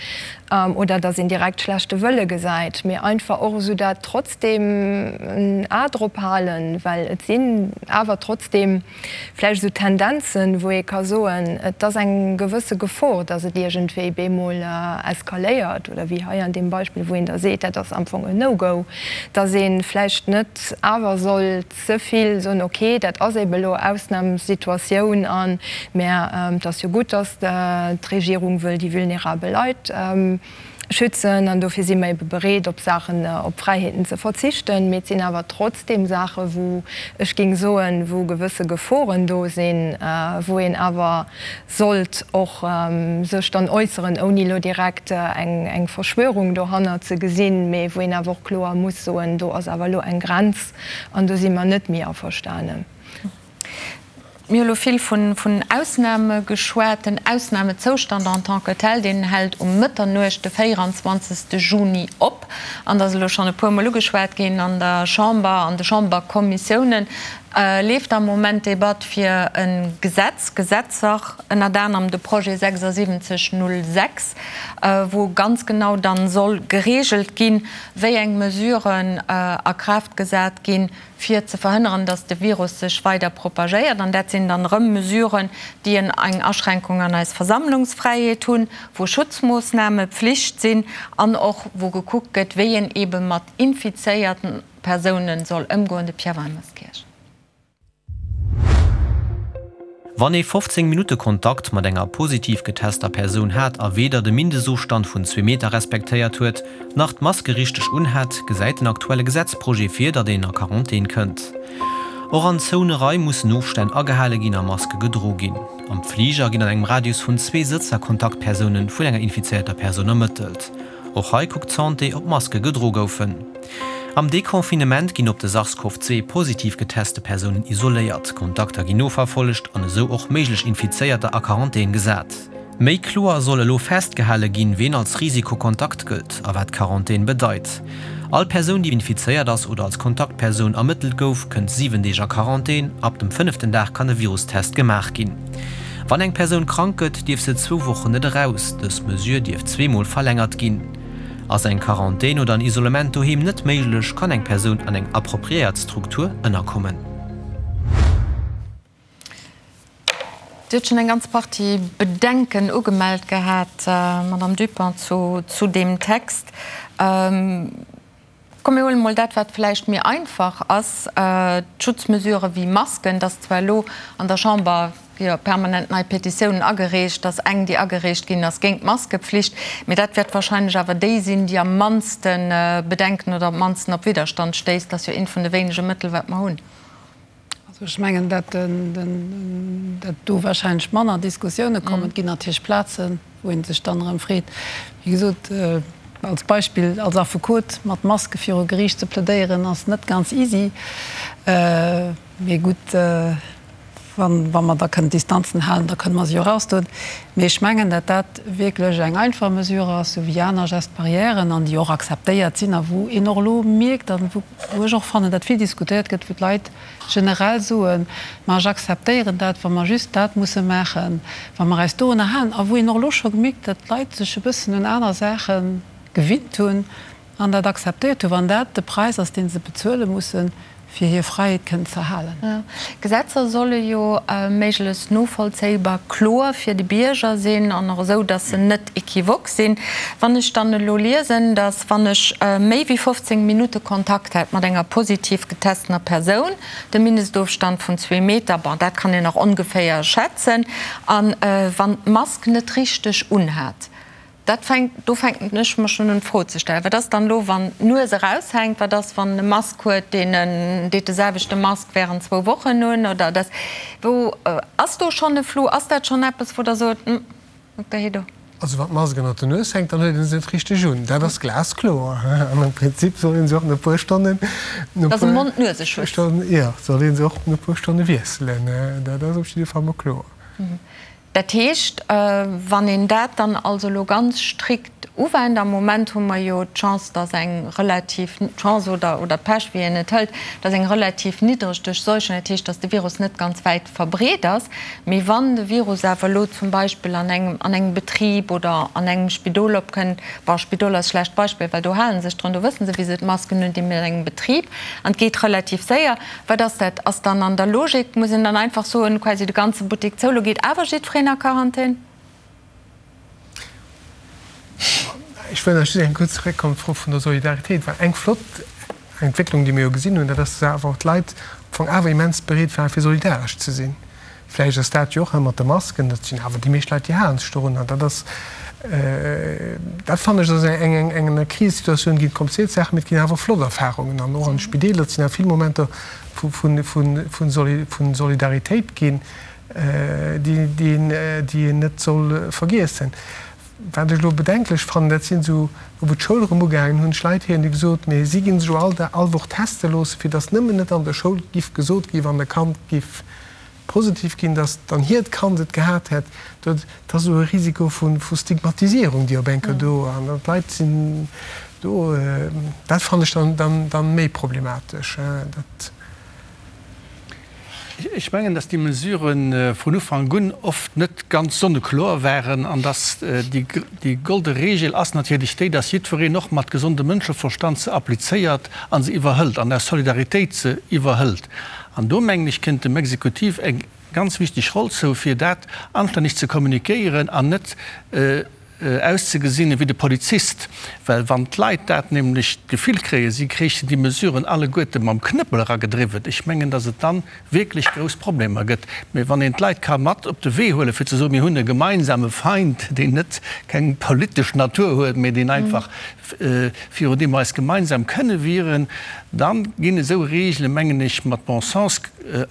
oder datt een direkt schlechte Wëlle gesäit, mee einfach och esou dat trotzdem en A drop halen, well et sinn awer trotzdem vläicht esou Tendenzen, wou ee ka soen, et ass eng gewësse Gefor, datt et iergendwéi bemol eskaléiert oder wéi hei an deem Beispill, wou een da seet, dat ass am Fong en No-Go, datt ee vläicht net awer soll ze vill soen, ok, dat ass ebe elo Ausnamssituatioun an, mä et ass jo gutt, datt d'Regierung wëll déi vulnerabel Leit schützen an dofir si mer ebe bereet, op Saachen, op Fräiheeten ze verzichten. Mee et sinn awer trotzdeem Saache wou ech géing soen, wou gewësse Geforen do sinn, wou een awer sollt och sech dann äusseren, ouni elo direkt eng Verschwörung dohannert ze gesinn, mee wou een awer och kloer muss soen, do ass awer elo eng Grenz an do si mer net méi averstanen. Mir hu elo vill vun Ausname geschwat. Den Ausnamezoustand en tant que tel, deen hält um Mëtternuecht de 24. Juni op. An dat ass elo schonn e puermol ugeschwat ginn an der Chamber, an de Chamberkommissiounen leeft am Moment d'Debatt fir e Gesetz, Gesetzer, ënnert anerem de Projet 7606, wou ganz genau dann soll geregelt ginn, wéi eng Mesuren a Kraaft gesat ginn, fir ze verhënneren, datt de Virus sech weider propagéiert. An dat sinn dann erëm Mesuren, déi eng Aschränkung an eis Versammlungsfräiheet hunn, wou Schutzmoossname Pflicht sinn an och wou gekuckt gëtt, wéi een eebe mat infizéierten Persounen soll ëmgoen. De Pierre Weimerskirch. Wann ee 15 Minutte Kontakt mat enger positiv getester Persoun hat a weder de Mindestofstand vun zwee Meter respektéiert huet, nach d'Maske richteg unhat, gesäit den aktuelle Gesetzprojet vir, datt een a Quarantän kënnt. Och an zoune Raim mussen Ofstänn agehale ginn a Maske gedro ginn. Am Fliger ginn an engem Radius vun zwee Sëtzer Kontaktpersoune vun enger infizéierter Persoun ermëttelt. Och hei kuckt d'Santé, ob Maske gedro goufen. Am Deconfinement ginn op de SARS-CoV-2 positiv geteste Persounen isoléiert, Kontakter ginn noverfollegt an esou och méiglech Infizéierter a Quarantän gesat. Méi kloer soll elo festgehale ginn, ween als Risikokontakt gëllt a wat Quarantän bedeit. All Persoun, déi infizéiert ass oder als Kontaktpersoun ermëttelt gouf, kënnt 7 Deeg a Quarantän. Ab dem fënneften Dag kann e Virustest gemaach ginn. Wann eng Persoun krank gëtt, dierf se zwou Wochen net eraus. Dës Mesure dierf zweemol verlängert ginn. Ass eng Quarantän oder en Isolement doheem net méiglech, kann eng Persoun an eng appropriéiert Struktur ënnerkommen. Dir hutt schonn eng ganz Partie Bedenken ugemellt gehat, Madamm Dupont, zu deem Text. Komm mir huelen emol dat, wat vläicht méi einfach ass, d'Schutzmesurë wéi Masken. Et ass zwar elo an der Chamber jo permanent nei Petitiounen agereecht, dass eng, déi agereecht ginn ass, géint d'Maskepflicht, mee dat wäert wahrscheinlech awer déi sinn, déi am mannste Bedenken oder am mannsten op Widderstand stéisst. Dat ass jo eent vun de wéinege Mëttel, wat mer hunn. Also ech mengen, dat do wahrscheinlech manner Diskussioune kommen. Et ginn natierlech Plazen, wou ee sech dann erëm freet, wéi gesot, als Beispill, als Affekot mat Maske viru Geriicht ze plädéieren, ass net ganz easy. Mee gutt, wa mer da kënnen d'Distanzen halen, da kënne mer se jo erausdoen. Mee ech mengen, dat dat wierklech eng einfach Mesure ass, sou wéi aner Gestes barrièren, an déi och akzeptéiert sinn a wou een och elo mierkt a wou ech och fannen, dat vill diskutéiert gëtt, wou d'Leit generell soen, ma ech akzeptéieren dat, wa mer just dat musse maachen, wa mer eis dorunner halen, a wou een och elo scho gemierkt, datt d'Leit sech e bëssen un aner Saache gewinnt hunn an dat akzeptéiert hunn, wann dat de Präis ass, dee se bezuele mussen, fir hir Fräiheet kënnen ze halen. Gesetzer solle jo méiglechst novollzéibar, kloer fir de Bierger sinn an och esou, datt se net equivoque sinn. Wann ech dann elo liesen, datt wann ech méi wéi 15 Minutte Kontakt hätt mat enger positiv getestener Persoun, de Mindestofstand vun zwee Meter, bon, dat kann een nach ongeféier schätzen, a wann d'Mask net richteg unhat, Dat fänkt, do fänken ech mer schonn un d'Fro ze stellen, wat ass dann elo, wann d'Nues eraushänkt, wat ass, wann en e Mask huet, deen en deet de selwechte Mask während zwou Wochen un oder dat, wou ass do schonn e Flou, ass dat schonn eppes, wou Der sot, hm, Dokter Hédo? Also wann d'Mask ënnert der Nues hänkt, dann huet ee se net richteg un, dat ass glaskloer. An am Prinzip soll ee se och no e puer Stonnen, no e Dat ass e puer Mond-Nuese-Schutz. Stonnen, jo, soll ee se och no e puer Stonne wiesselen, dat ass op jidde Fall mol kloer. Dat heescht, wann een dat dann also elo ganz strikt uwennt, am Moment hu mer jo d'Chance, dass eng relativ, d'Chance oder, oder d'Pech, wéi een et hëlt, dass eng relativ niddreg Duerchseuchung, dat heescht, dass de Virus net ganz wäit verbreet ass. Mee wann de Virus awer elo zum Beispill an engem, an engem Betrib oder an engem Spidol opkënnt, bon, Spidol ass e schlecht Beispill, well do hale sech drun, do wësse se, wéi se d'Masken undinn, mee an engem Betrib, an et geet relativ séier, Wat ass dat? Ass dann an der Logik, muss een dann einfach soen, quasi de ganze Buttek zou, lo geet awer jiddwereen a Quarantän? Ech wëll nach just eng kuerz zeréckkommen op d'Fro vun der Solidaritéit, well eng flott Entwécklung, déi mir jo gesinn hunn, dat ass, dass awer och d'Leit am Fong awer immens bereet waren, fir solidaresch ze sinn. Vläicht ass dat jo och ëmmer de Masken, dat sinn awer déi meescht Leit, déi halen sech dorun. An dat ass, dat fannen ech, ass eng, eng, eng, an der Krisesituatioun ginn et kompliziert Saachen, mee et ginn awer och flott Erfahrungen. An och an de Spideeler, et sinn awer vill Momenter vu, vu, vu, vu Soli, vu Solidaritéit ginn, déi, déi een, déi een net soll vergiessen. Wat ech elo bedenklech fannen, dat sinn esou, wou d'Schoul erëm ugaangen hunn, ech Leit héieren, déi gesot, mee si ginn sech elo all Dag, all Woch teste loossen, fir datt nëmmen net an der Schoul giff gesot ginn, wann e Kand giff positiv ginn, datt dann hiert Kand et gehat hätt. Dat ass esou e Risiko vu Stigmatisierung, déi op eng Kéier do, an d'Leit sinn do, dat fannen ech dann méi problematesch. Dat. Ech mengen, datt déi Mesurë vun Ufank un oft net ganz sonnekloer waren an datt déi golde Regel ass natierlech déi, datt jiddwereen och mat gesondem Mënscheverstand se applizéiert a se iwwerhëlt an aus Solidaritéit se iwwerhëlt. An do, mengen ech, kënnt dem Exekutiv eng ganz wichteg Roll zou, fir dat anstänneg ze kommunikéieren an net auszegesinn ewéi de Polizist, well wann d'Leit dat nämlech d'Gefill kréien, si kréichen déi Mesuren alleguerte mam Knëppel eragedriwwen, ech mengen, datt et dann wierklech grouss Problemer gëtt. Mä wann een d'Leit ka mat op de Wee huelen, fir ze soen, mir hunn e gemeinsame Feind, deen net keng politesch Natur huet, mä deen einfach, virun deem mer eis gemeinsam kënne wieren, da ginn esou Regele, mengen ech, mat Bon sens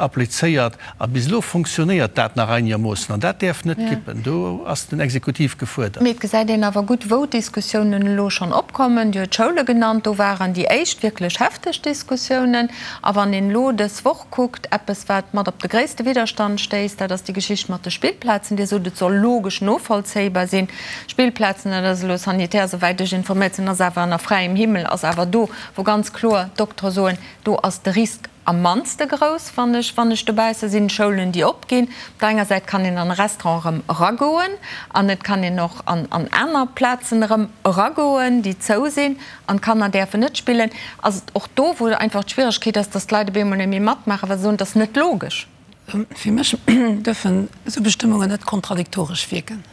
applizéiert. A bis elo fonctionnéiert dat nach einegermoossen an dat däerf net kippen. Do ass den Exekutiv gefuerdert. Mee et gesäit een awer gutt, wou d'Diskussiounen elo schonn opkommen. Dir huet d'Schoule genannt, do waren déi éischt wierklech hefteg Diskussiounen. A wann een elo dës Woch kuckt, eppes, wat mat op de gréisste Widderstand stéisst, dat ass déi Geschicht mat de Spillplazen. Dir sot, et soll logesch novollzéibar sinn. Spillplazen, dat ass elo sanitär, esouwäit ech informéiert sinn, ass awer ënner fräiem Himmel, ass awer do, wou ganz kloer d'Doktere soen, do ass de Risk Am mannste grouss, wann ech, wann ech dobausse sinn, Schoulen, déi opginn. Op der enger Säit kann een an e Restaurant erëm eragoen an et kann een och an, an aner Plazen erëm eragoen, déi zou sinn an d'Kanner däerfen net spillen. Ass et och do, wou einfach d'Schwieregkeet ass, dass d'Leit op eemol net méi matmaachen, well se soen, et ass net logesch. Fir mech dürfen esou Bestëmmungen net kontradiktoresch wierken.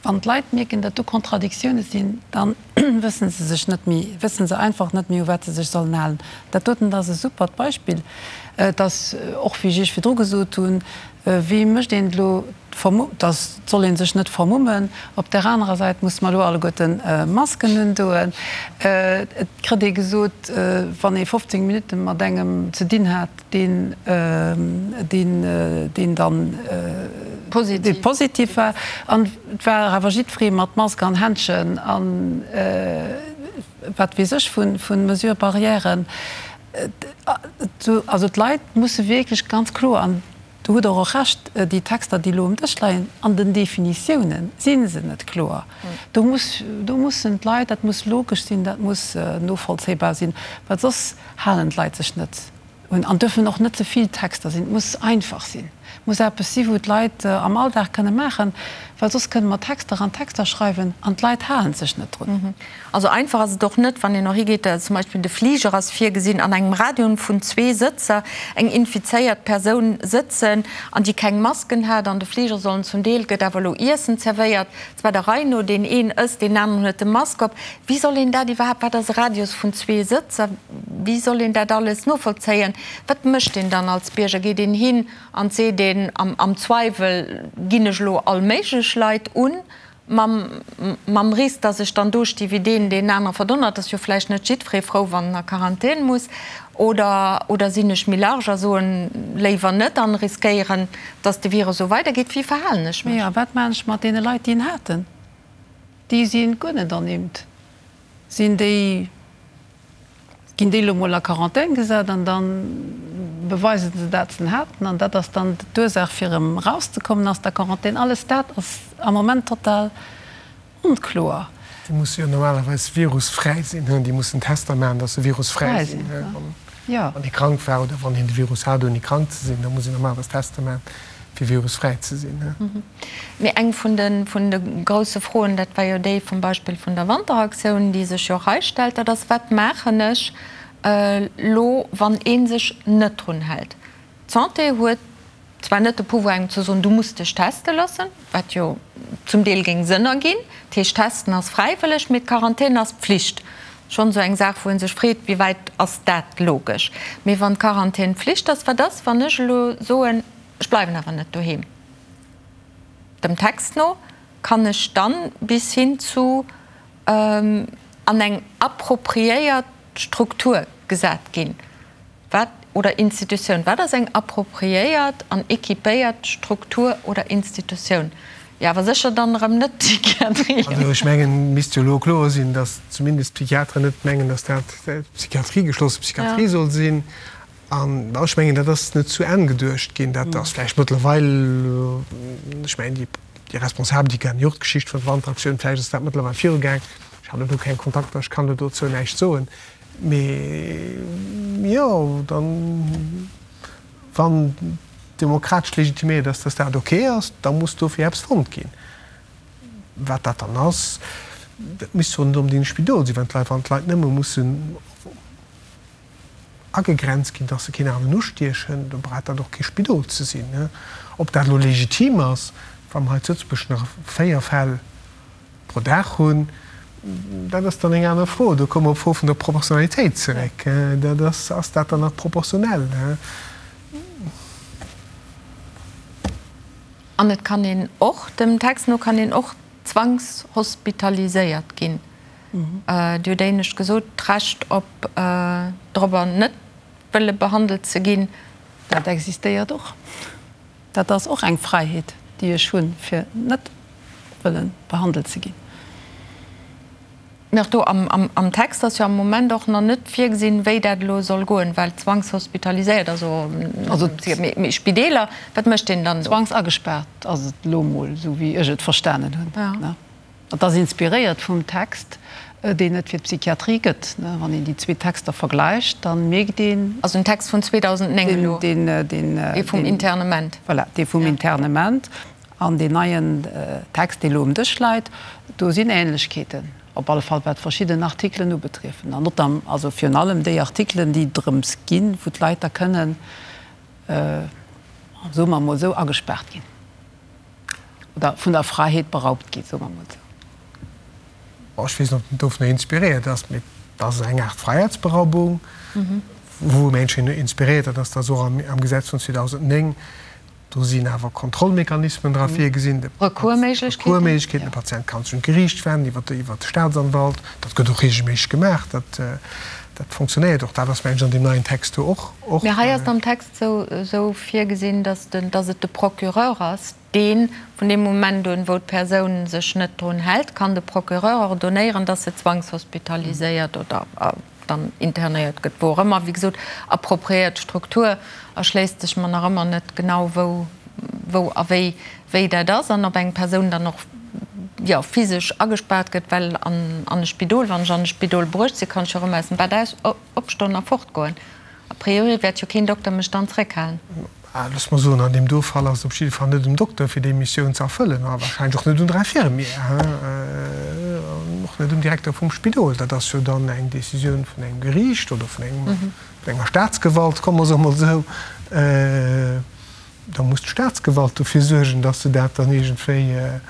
Wann d'Leit mierken, datt do Kontradiktioune sinn, da wësse se sech net méi, wësse se einfach net méi, u wat se sech sollen halen. Dat doten ass e supert Beispill. Et ass och, wéi ech Iech virdru gesot hunn, wéi mécht een et elo, dass et soll ee sech net vermummen, op där anerer Säit musse mer elo alleguerte Masken undoen. Et kritt ee gesot, wann ee 15 Minutte mat engem ze dinn hat, deen deen dann positiv war an et war awer jiddweree mat Mask an Händschen an wat weess ech vu Mesures barrièren. Also d'Leit musse wierklech ganz kloer, an do hutt Der och Recht, déi Texter déi elo um Dësch leien, an den Definitiounen si se net kloer. Do muss, do mussen d'Leit, dat muss logesch sinn, dat muss novollzéibar sinn, well soss halen d'Leit sech net un. An dürfen och net ze vill Texter sinn. Et muss einfach sinn. Et muss eppes si wou d'Leit am Alldag kënne maachen, well soss kënne mer Texter an Texter schreiwen an d'Leit halen sech net drun. Also einfach ass et och net, wann een och higeet, zum Beispill de Fliger ass virgesinn, an engem Radion vun zwee Sëtzer eng infizéiert Persoun sëtzen an déi keng Masken hat an de Fliger sollen zum Deel, gëtt awer elo Iessen zerwéiert, zwar der Rei no, deen een ësst, deen aneren huet de Mask op. Wéi soll een dat iwwerhaapt, wat ass e Radius vun zwee Sëtzer, wéi soll een dat alles novollzéien? Wat mécht een dann als Bierger? Geet een hin an seet een am Zweiwel ginn ech elo all méiglech Leit un, mam mam Risk, datt ech dann do sti wéi deen, deen anere verdonnert? Ass jo vläicht net jiddweree frou, wann en a Quarantän muss. Oder oder sinn ech méi large a soen léiwer net an riskéieren, datt de Virus esou weidergeet? Wéi verhalen ech mech? Jo, a wat maachen ech mat deene Leit, déi en haten? Déi si guer net ernimmt. Sinn déi, ginn déi elo mol a Quarantän gesat an da. beweise se dat se en haten an dat ass dann d'Ursaach fir erëm erauszekommen aus der Quarantän. Alles dat ass am Moment total onkloer. Déi musse jo normalerweis virusfräi sinn, déi mussen Tester maachen, datt se virusfräi sinn. Wann ee krank war oder wann een de Virus hat ouni krank ze sinn, da muss een normalerweis Tester maachen, fir virusfräi ze sinn. Mee eng vun de vun de grousse Froen, dat war jo déi vum Beispill vun der Wanteraktioun, déi sech jo och hei stellt, dat ass, Wat maachen ech elo, wann ee sech net drun hält? D'Santé huet zwar net de Pouvoir engem ze soen, du muss dech teste loossen, wat jo zum Deel géing Sënn erginn, dat heescht testen ass fräiwëlleg, mee d'Quarantän ass Pflicht. Schonn esou eng Saach, wou ee sech freet, wéi wäit ass dat logesch. Mee wann d'Quarantän Pflicht ass, wat ass, wann ech elo soen, ech bleiwen awer net doheem? Dem Text no kann ech dann bis hin zu an eng appropriéiert Struktur gesat ginn. Wat, oder Institutioun, wat ass eng appropriéiert an équipéiert Struktur oder Institutioun? Jo, awer sécher dann erëm net d'Psychiatrie. Also ech mengen, et misst jo elo kloer sinn, datt zumindest d'Psychiateren net mengen, datt dat d'Psychiatrie, geschlosse Psychiatrie soll sinn. An ech mengen, dat ass net zu Enn geduecht ginn. Dat ass vläicht mëttlerweil, ech mengen, déi Responsabel, déi kennen jo och d'Geschicht vun der Wanteraktioun, vläicht ass dat mëttlerweil virugaang. Ech hat elo keng Kontakter, ech kann do dozou näischt soen. Mee jo, dann, wann demokratesch legitiméiert ass, dass dat ok ass, da muss dofir eppes fonnt ginn. Wat dat dann ass, dat misst jo net onbedéngt e Spidol sinn, wann d'Leit, wann d'Leit nëmme mussen agegrenzt ginn, dass se keen aneren ustiechen, da brauch dat och kee Spidol ze sinn. Ob dat elo legitim ass, wa mer hei zu Lëtzebuerg nach 4 Fäll pro Dag hunn, dat ass dann eng aner Fro. Do komme mer op d'Fro vun der Proportionalitéit zeréck. Dat ass, ass dat dann nach proportionell? An et kann een och, dem Text no kann een och zwangshospitaliséiert ginn. Dir hutt éinescht gesot, d'Recht op dorobber net wëlle behandelt ze ginn. Dat existéiert och. Dat ass och eng Fräiheet, déi ech hunn, fir net wëlle behandelt ze ginn. Mee och do am Text ass jo am Moment och nach net virgesinn, wéi dat elo soll goen, well zwangshospitaliséiert, also mee Spideeler, wat mécht een dann do? Zwangsagespaart ass et elo emol, esou wéi ech et verstanen hunn. Et ass inspiréiert vum Text, deen et fir d'Psychiatrie gëtt. Wann een déi zwee Texter vergläicht, da mierkt een. Also den Text vun 2009 elo, dee vum Internement. Voilà, dee vum Internement. An deen neien Text, dee elo um Dësch läit, do sinn Ähnlechkeeten, op alle Fall wat verschidden Artikelen ubetriefen. An notam, also virun allem déi Artikelen, déi drëms ginn, wou d'Leit da kënnen, soe mer emol esou, agespaart ginn. Oder vun der Fräiheet beraubt gi, soe mer emol esou. Bon, ech weess net, ob en dovunner inspiréiert ass, mee et ass eng Aart Fräiheetsberaubung, wou Menschen inspiréiert dat ass, dat och am Gesetz vun 2009, do sinn awer Kontrollmechanismen dra virgesinn, de Recoursméiglechkeeten, de Patient kann sech un d'Geriicht wenden iwwer de Staatsanwalt, dat gëtt och reegelméisseg gemaach, dat fonctionnéiert och. Dat ass, mengen ech, an deem neien Text do och. Mee hei ass et am Text esou virgesinn, dass et de Procureur ass, dee vun deem Moment un, wou d'Persoun sech net drun hält, kann de Procureur ordonnéieren, dass se zwangshospitaliséiert oder dann internéiert gëtt, wou och ëmmer. Wéi gesot, appropriéiert Struktur erschléisst sech mer nach ëmmer net genau, wou, wou a wéi, wéi dat ass an ob eng Persoun dann och, jo, physesch agespaart gëtt, well an an e Spidol, wann ech an e Spidol bruecht sinn, kann ech jo erëm aus dem Bett aus, opstoen a fortgoen. A priori wäert jo keen Dokter mech dann zréckhalen. Looss mer soen, an deem do Fall ass et op jidde Fall net um Dokter, fir déi Missioun ze erfëllen, a wahrscheinlech och net un der Infirmière, an och net um Direkter vum Spidol. Dat ass jo dann eng Décisioun vun engem Geriicht oder vun engem, vun enger Staatsgewalt, komme mer se emol esou. Da muss d'Staatsgewalt dofir suergen, dass se dat dann iergendwéi,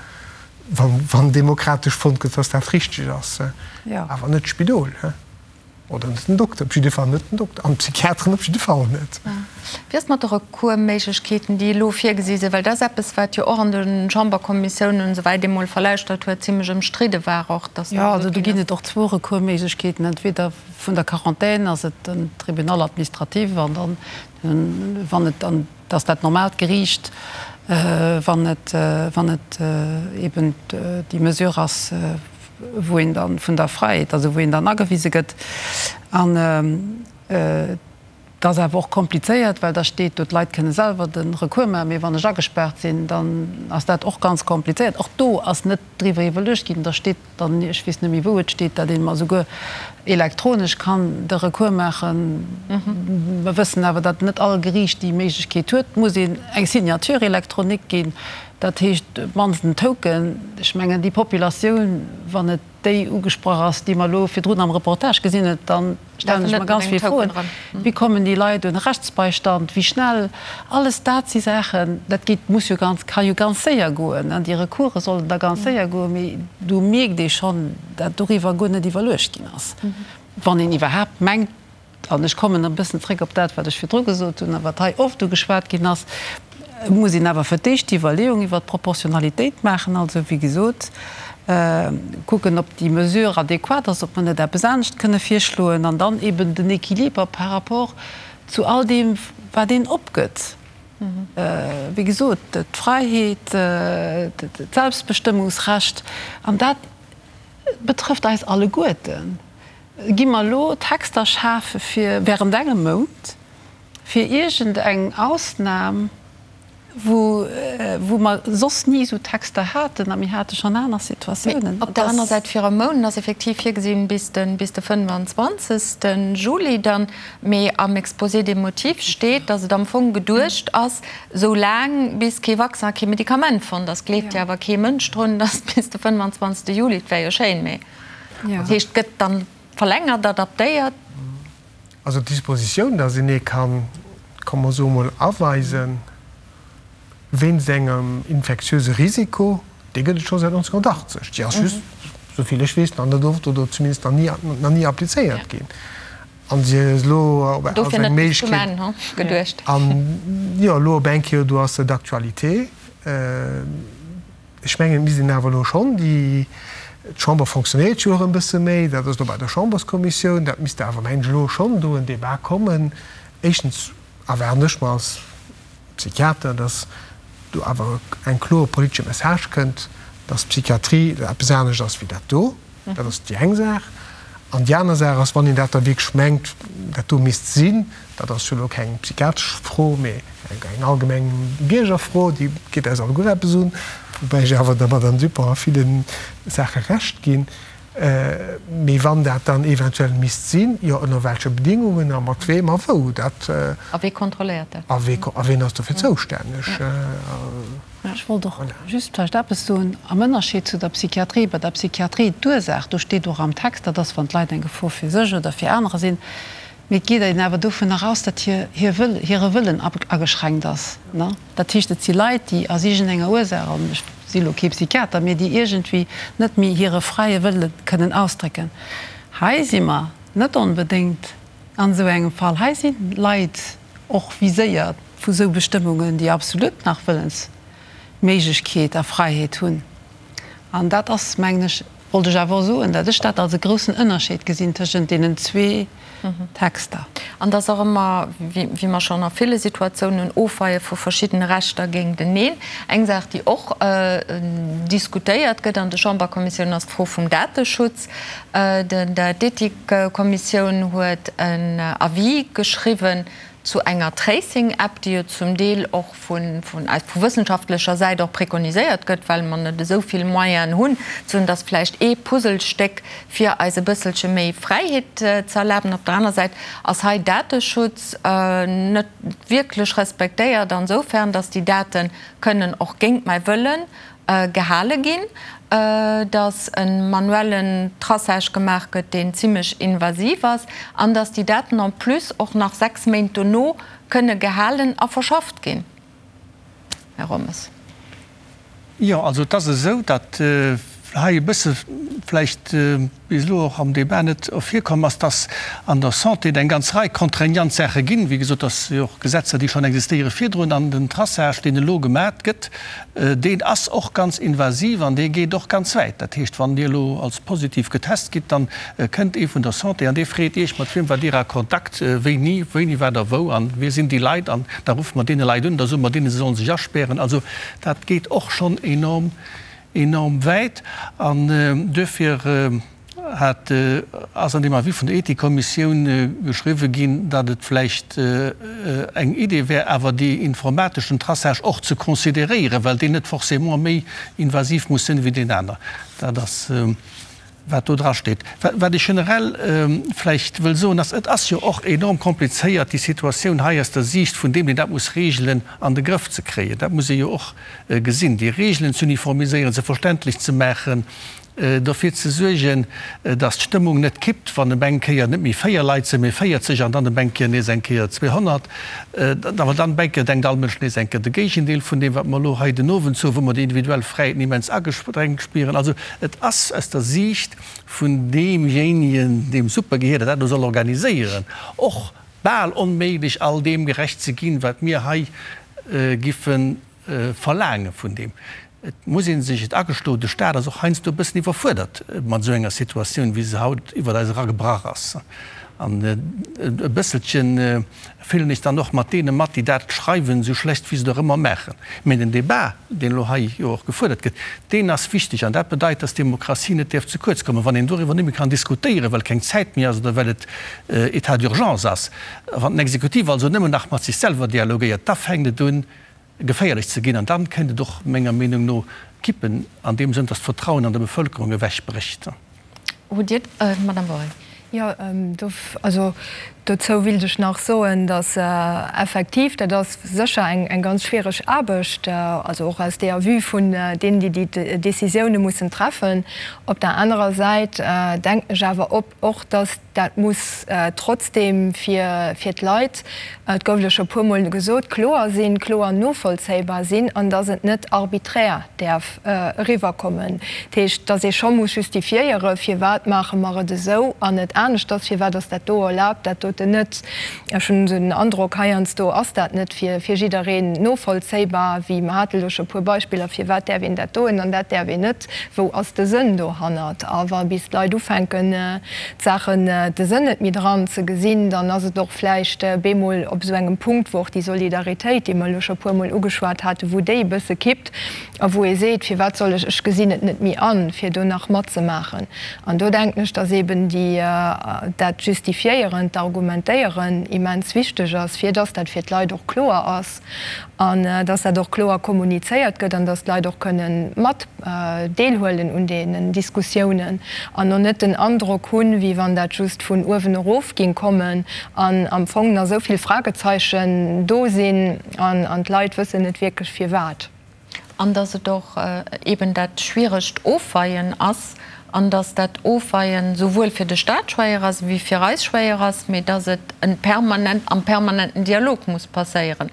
wann demokratesch fonnt gëtt, dass dat richteg ass, awer net d'Spidol. Oder net den Dokter, op jidde Fall net den Dokter an d'Psychiateren op jidde Fall net. Wéi ass et mat de Recoursméiglechkeeten, déi elo virgesi sinn? Well dat ass eppes, wat jo och an de Chamberkommissiounen, souwäit ee mol verlauschtert huet, zimlech ëmstridde war och, dass da gesot ginn ass. Jo, also do ginn et och zwou Recoursméiglechkeeten. Entweder vun der Quarantän ass et den Tribunal administratif an dann, wann et dann, dat ass dat normaalt Geriicht, wann et, wann et eben déi Mesure ass, wou een dann vun der Fräiheet, also wou een dann agewise gëtt. An. Et ass awer och komplizéiert, well da steet do, d'Leit kënne selwer de Recours maachen, mee wann ech agespaart sinn, dann ass dat och ganz komplizéiert. Och do ass net driwwer iwwerluecht ginn. Da steet dann, ech weess net méi wou et steet, datt een esouguer elektronesch kann de Recours maachen. Mer wëssen awer, datt net all Geriicht déi Méiglechkeet huet. Et muss een eng Signature électronique ginn, dat heescht op d'mannst en Token. Ech mengen, déi Populatioun, wann et déi ugesprach ass, déi mer elo virdrun am Reportage gesinn hunn, da stellen ech mer ganz vill Froen. Wéi kommen déi Leit un Rechtsbeistand? Wéi schnell? Alles dat si Saachen, dat geet, muss jo ganz, ka jo ganz séier goen. Déi Recourse sollen da ganz séier goen, mee do mierkt ee schonn, dat doriwwer guer net iwwerluecht ginn ass, wann een iwwerhaapt mengt, An ech kommen e bëssen zréck op dat, wat ech virdru gesot hunn a wat hei oft ugeschwat ginn ass, Et muss een awer fir d'éischt déi Iwwerleeung iwwert d'Proportionalitéit maachen, also wéi gesot kucken, ob déi Mesure adequat ass, ob mer net eppes anescht kënne virschloen, an dann eben den Équiliber par rapport zu all deem, wat een opgëtt. Wéi gesot, d'Fräiheet, d'Selbstbestëmmungsrecht, an dat betrëfft eis alleguerten. Gi mer elo Texter schafe fir während engem Mount, fir iergend eng Ausnam, wou wou mer soss ni esou Texter haten, a mir hate schonn aner Situatiounen. Op der aner Säit, fir e Mount ass effektiv virgesinn bis de bis de 25. Juli dann, mee am Exposé des motifs steet, datt et am Fong geduecht ass, esou laang bis kee Vaccin a kee Medikament fonnt ass. Gleeft jo awer kee Mënsch drun, datt bis de 25. Juli, et wär jo schéin, mee. Dat heescht, et gëtt dann verlängert, adaptéiert. Also d'Dispositioun, datt een ee kann, komm mer soe mol, aweisen wéinst engem infektiöse Risiko, déi gëtt et scho säit 1980. Déi ass just, esou vill ech weess, nach net oft oder zumindest nach ni, nach ni applizéiert ginn. An si ass elo op als eng Méiglechkeet. An jo, elo op eng Kéier, do ass se d'actualité. Ech mengen, et misst een awer elo schonn déi, d'Chamber fonctionnéiert jo och e bësse méi, dat ass elo bei der Chamberskommissioun, dat misst awer, mengen ech, elo schonn do en Débat kommen. Éischtens erwaarden ech mer als Psychiater, datt do awer eng kloer politesche Message kënnt, datt d'Psychiatrie eppes anescht ass wéi dat do. Dat ass déi eng Saach. An déi aner Saach ass, wann een dat da wierklech mengt, dat do misst sinn, dat ass jo elo keng psychiatresch Fro, mee eng allgemeng Biergerfro, déi geet eis alleguer eppes un, woubäi ech awer der Madame Dupont a ville Saache Recht ginn, mee wann dat dann eventuell misst sinn, jo ënner welche Bedingungen a mat weem a wou, dat. A wee kontrolléiert dat? A ween ass dofir zoustänneg? Ech wollt och just vläicht eppes soen am Ënnerscheed zu der Psychiatrie. Bei der Psychiatrie, d'Ursaach, do steet och am Text, dat ass, wann d'Leit eng Gefor fir sech oder fir anerer sinn. Mee et geet een awer dovunner aus, datt hir, hir Wëll, hire Wëllen ageschränkt ass. Dat heescht, et si Leit, déi aus iergendenger Ursaach, an ech si elo kee Psychiater, mee déi iergendwéi net méi hire fräie Wëlle kënnen ausdrécken. Hei si mer net onbedéngt an esou engem Fall. Hei si Leit och viséiert vu sou Bestëmmungen, déi absolut nach Wëllensméiglechkeet a Fräiheet hunn. An dat ass, mengen ech, wollt ech awer och soen, dat ech dat als e groussen Ënnerscheed gesinn tëschent deenen zwee Texter. An et ass och ëmmer, wéi mer schonn a ville Situatiounen, Ofweie vu verschiddene Rechter géinteneen. Eng Saach, déi och diskutéiert gëtt an de Chamberkommissiounen, ass d'Fro vum Dateschutz. D'Ethikkommissioun huet en Avis geschriwwen zu enger Tracing-App, déi jo zum Deel och vu wëssenschaftlecher Säit och prekoniséiert gëtt, well mer net esou vill Moyenen hunn, ze soen, dass vläicht ee Puzzlestéck fir eis e bësselche méi Fräiheet ze erlaben. Op der aner Säit ass hei Dateschutz net wierklech respektéiert ansoufern, dass déi Date kënnen och géint mäi Wëllen gehale ginn, dass e manuellen Traçage gemaach gëtt, deen zimlech invasiv ass, an dass déi Daten en plus och nach 6 Méint dono kënne gehalen a verschafft ginn. Här Rommes. Jo, also et ass esou, datt hei e bësse vläicht bis elo och am Débat net ervirkomm ass, dass an der Santé et eng ganz Rei contraignant Saache ginn, wéi gesot, dass jo och Gesetzer, déi schonn existéiere virdrun, an den Traçage, deen elo gemat gëtt, deen ass och ganz invasiv an dee geet och ganz wäit. Dat heescht, wann Dir elo als positiv getest gitt, dann kënnt ee vun der Santé an dee freet Iech, mat wiem waart Dir a Kontakt, wéini, wéini waart Der wou an wie sinn déi Leit an da ruffe mer deene Leit un, da soe mer deenen, se sollen sech aspären. Also dat geet och schonn enorm enorm wäit an duerfir. Hat, ass an deem Avis vun der Ethikkommissioun geschriwwe ginn, datt et vläicht eng Idee wär, awer dee informateschen Traçage och ze consideréieren, well deen net forcément méi invasiv muss sinn wéi deen aner. Dat ass, wat do drasteet. Wat ech generell vläicht wëll soen, ass, Et ass jo och enorm komplizéiert, déi Situatioun hei aus der Siicht vun deem, deen dat muss regelen, an de Grëff ze kréien. Dat muss ee jo och gesinn, déi Regelen z'uniformiséieren, se verständlech ze maachen, dofir ze suergen, datt d'Stëmmung net kippt, wann ëm eng Kéier net méi 4 Leit sinn, mee 40 an dann ëm eng Kéier nees eng Kéier 200. Awer dann ëm eng Kéier denkt all Mënsch nees eng Kéier de Géigendeel vun deem, wat mer elo hei den Owend soen, wou mer déi individuell Fräiheeten immens agesprengt spieren. Also et ass aus der Siicht vun deemjéinegen, deem Supergehier, dat dat elo soll organiséieren, och bal onméiglech, all deem gerecht ze ginn, wat mir hei giffe verlaange vun deem. Et muss ee sech et agestoen, de Staat ass och heiansdo e bëssen iwwerfuerdert mat esou enger Situatioun, wéi se haut iwwert eis eragebrach ass. An e bësselche fillen ech dann och mat deene mat, déi dat schreiwen, esou schlecht wéi se et och ëmmer maachen. Mä den Débat, deen elo hei jo och gefuerdert gëtt, deen ass wichteg. An dat bedeit, dass d'Demokratie net däerf ze kuerz kommen. Wann een doriwwer net méi kann diskutéieren, well keng Zäit méi ass oder well et État d'urgence ass, wann den Exekutiv also nëmmen nach mat sech selwer dialogéiert, da fänkt et un, geféierlech ze ginn an dann kéint et och menger Meenung no kippen an deem Sënn, dass d'Vertrauen an der Bevölkerung ewech brécht. Hutt Dir, Madame Wohring. Jo, also dozou willt ech nach soen, dass effektiv, dat ass sécher eng ganz schwiereg Aarbecht, also och aus deeër Vue vun deenen, déi déi Décisioune mussen treffen. Op der anerer Säit denken ech awer och, dass Dat muss trotzdeem fir d'Leit, et gouf elo scho puermol gesot, kloer sinn, kloer novollzéibar sinn an dass et net arbiträr däerf eriwwerkommen. Dat heescht, dass ee scho muss justifiéieren, firwat maache mer et esou an net aneschters, firwat ass dat do erlaabt, dat doten net. Ech hunn esou den Androck, heiansdo ass dat net fir jiddereen novollzéibar, wéi mer hate elo scho e puer Beispiller, firwat däerf een dat doen an dat däerf een net, wou ass de Sënn dohannert? A wa bis d'Leit ufänken, d'Saachen, de Sënn net méi dran ze gesinn, dann ass et och vläicht bemol op esou engem Punkt, wou och déi Solidaritéit, déi mer elo scho e puermol ugeschwat haten, wou déi e bësse kippt a wou ee seet, Firwat soll ech, ech gesinn et net méi an, fir do nach matzemaachen. An do denken ech, dass eeben déi, dat Justifiéieren, d'Argumentéieren immens wichteg ass, fir dass dat fir d'Leit och kloer ass an dass dat och kloer kommunizéiert gëtt an dass d'Leit och kënnen mat deelhuelen un deenen Diskussiounen an och net den Androck hunn, wéi wann dat just vun uewen erof ging kommen an am Fong nach esou vill Fragezeichen do sinn an d'Leit wëssen net wierklech firwat. An dass et och eeben dat schwieregt Ofweien ass an dass dat Ofweien souwuel fir de Stat schwéier ass wéi fir eis schwéier ass, mee dass et en permanent, am permanenten Dialog muss passéieren.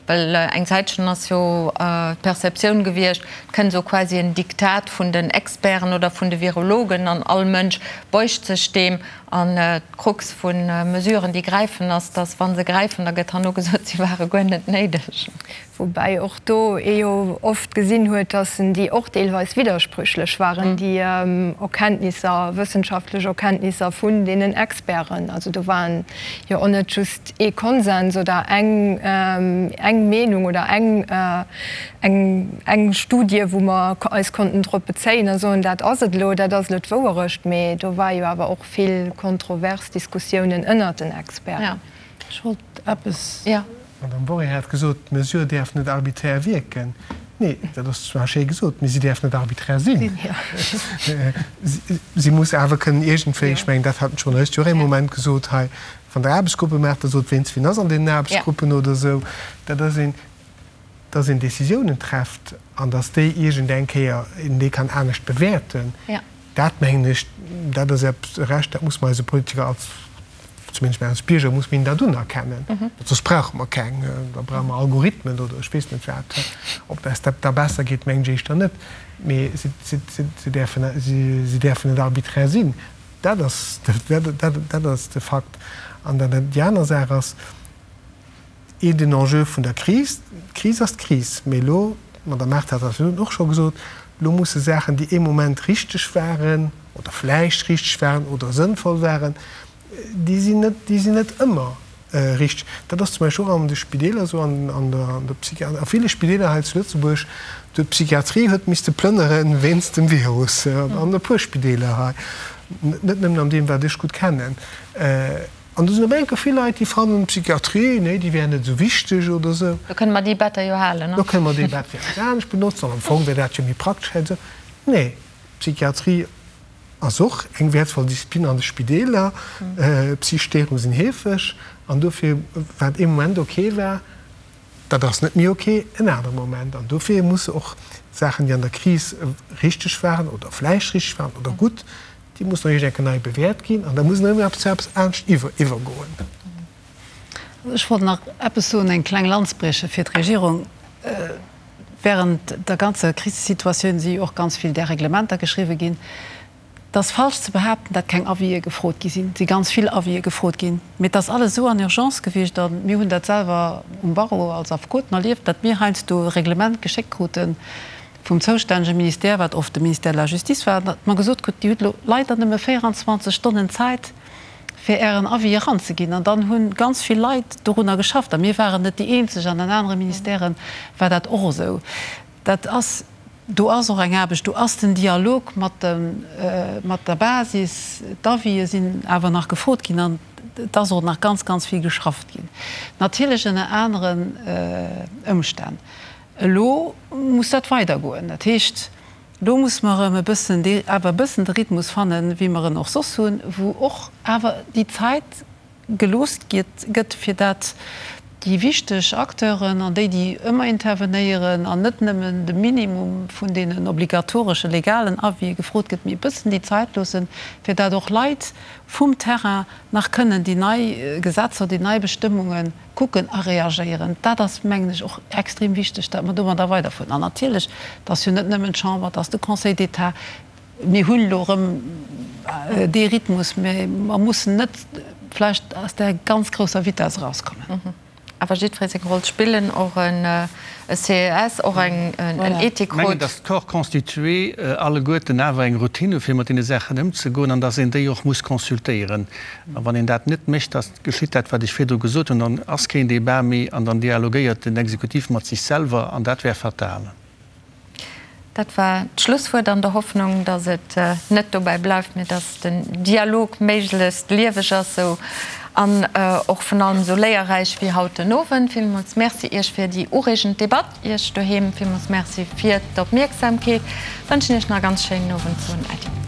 Well eng Zäitchen ass jo d'Perceptioun gewiescht, et kënnt esou quasi en Diktat vun den Experten oder vun de Virologen an all Mënsch beugt sech deem. An d'Krux vu Mesuren, déi gräifen, ass, dass, wa se gräifen, da gëtt herno gesot, si ware guer net néideg. Woubäi och do ee jo oft gesinn huet, dass déi och deelweis widdersprüchlech waren, déi Erkenntnisser, wëssenschaftlech Erkenntnisser vun deenen Experten. Also do waren jo och net just ee Konsens oder eng eng Meenung oder eng eng eng Studie, wou mer eis konnten drop bezéien a soen, dat ass et elo, dat ass elo d'Wouerecht. Mee do war jo awer och vill kontrovers Diskussiounen ënnert den Experten. Ech wollt eppes. D'Madame Worré hat gesot, d'Mesure däerf net arbiträr wierken. Nee, dat ass zwar schéi gesot, mee si däerf net arbiträr sinn. Si muss awer kënnen iergendwéi, ech mengen, dat hat den Journalist jo och ee Moment gesot hei, wann Der Aarbechtsgruppe maacht, da sot, ween wien ass an deenen Aarbechtsgruppen oder esou. Dat ass een, dass een Décisiounen trefft an dass déi iergendeng Kéier een déi kann anescht bewäerten, dat mengen ech, dat ass eppes, e Recht, dat muss mer eise Politiker als, zumindest mir als Bierger, muss mir hinnen dat unerkennen. Soss brauche mer keng, da brauche mer Algorithmen oder ech weess net wat. Ob eis dat da besser geet, mengen ech éischter net. Mee si, si, si däerfen, si däerfen net arbiträr sinn. Dat ass, dat ass de Fakt. An dann déi aner Saach ass, Ee den Enjeu vun der Kris, d'Kris ass d'Kris, mee elo, d'Madame Mart hat dat virun och scho gesot, elo musse Saachen, déi ee Moment richteg waren oder vläicht richteg waren oder sënnvoll waren, déi sinn net, déi sinn net ëmmer richteg. Dat ass zum Beispill och an de Spideeler esou, an an der an der Psychi a ville Spideeler hei zu Lëtzebuerg, do d'Psychiatrie huet misste plënnere wéinst dem Virus, an e puer Spideeler hei. Net nëmmen an deem, wat ech gutt kennen. An do sinn op eng Kéier vill Leit, déi fannen, d'Psychiatrie, nee, déi wär net esou wichteg oder esou. Do kënne mer déi Better jo halen, ne? Do kënne mer déi Bett fir eppes anescht benotzen an am Fong wär dat jo méi praktesch hei esou. Nee, d'Psychiatrie ass och eng wäertvoll Disziplin an de Spideeler. Psychesch Stéierunge sinn heefeg an dofir, wat ee Moment ok war, dat ass net méi ok en anere Moment. An dofir musse och Saachen, déi an der Kris richteg waren oder vläicht richteg waren oder gutt, déi mussen och iergend eng Kéier nei bewäert ginn an da muss een erëm eppes zu eppes anescht iwwergoen. Ech wollt nach eppes soen, eng kleng Lanz brieche fir d'Regierung. Während der ganzer Krisesituatioun si jo och ganz vill där Reglementer geschriwwen ginn. Et ass falsch ze behaapten, datt keng Avisë gefrot gi sinn. Et si ganz vill Avisë gefrot ginn, mee et ass alles esou an Urgence gewiescht a mir hunn dat selwer um Barreau als Affekoten erlieft, datt mir heiansdo e Reglement geschéckt krute vum zoustännege Ministère, wat oft de Ministère de la Justice war, datt mer gesot kruten, Dir hutt elo leider nëmme 24 Stonnen Zäit, fir Ären Avis eranzeginn. An dann hu ganz vill Leit dorunner geschafft. A mir waren net déi eenzeg, an an anere Ministèrë war dat och esou. Dat ass, do ass och eng Aarbecht, do ass den Dialog mat de, mat der Basis. D'Avisë sinn awer nach gefrot ginn an et ass och nach ganz, ganz vill geschafft ginn, natierlech ënner aneren Ëmstänn. Elo muss dat weidergoen. Dat heescht, Elo muss mer erëm e bëssen dee, awer e bëssen de Rhythmus fannen, wéi mer en och soss hunn, wou och awer déi Zäit gelooss gëtt, fir dat déi wichteg Acteuren an déi, déi ëmmer intervenéieren an net nëmmen de Minimum vun deenen obligatoresche legalen Avisë gefrot gëtt, mee e bëssen déi Zäit loossen, fir dat och Leit vum Terrain nach kënnen déi nei Gesetzer, déi nei Bestëmmunge kucken a reagéieren. Dat ass, mengen ech, och extrem wichteg, datt mer domadder weiderfueren. An natierlech, et ass jo net nëmmen d'Chamber, et ass de Conseil d'État. Mir hunn elo erëm dee Rhythmus, mä mer mussen net vläicht aus där ganz grousser Vitess erauskommen. Awer jiddweree seng Roll spillen, och e CES, och en Ethikrot. Ech mengen, datt d'Corps constitué alleguerten awer eng Routine hu fir mat deene Saachen ëmzegoen an datt een déi och muss consultéieren. A wann een dat net mécht, da geschitt dat, wat ech virdru gesot hunn, dann ass keen Débat méi an dann dialogéiert den Exekutiv mat sech selwer an dat wär fatal. Dat war d'Schlusswuert an der Hoffnung, datt et net dobäi bleift, mee datt den Dialog méiglechst lieweg ass esou an och vun allem esou léierräich wéi haut den Owend. Villmools Merci Iech fir déi ureegend Debatt. Iech doheem villmools Merci fir d'Opmierksamkeet. Wënschen Iech nach e ganz schéinen Owend, soen Äddi.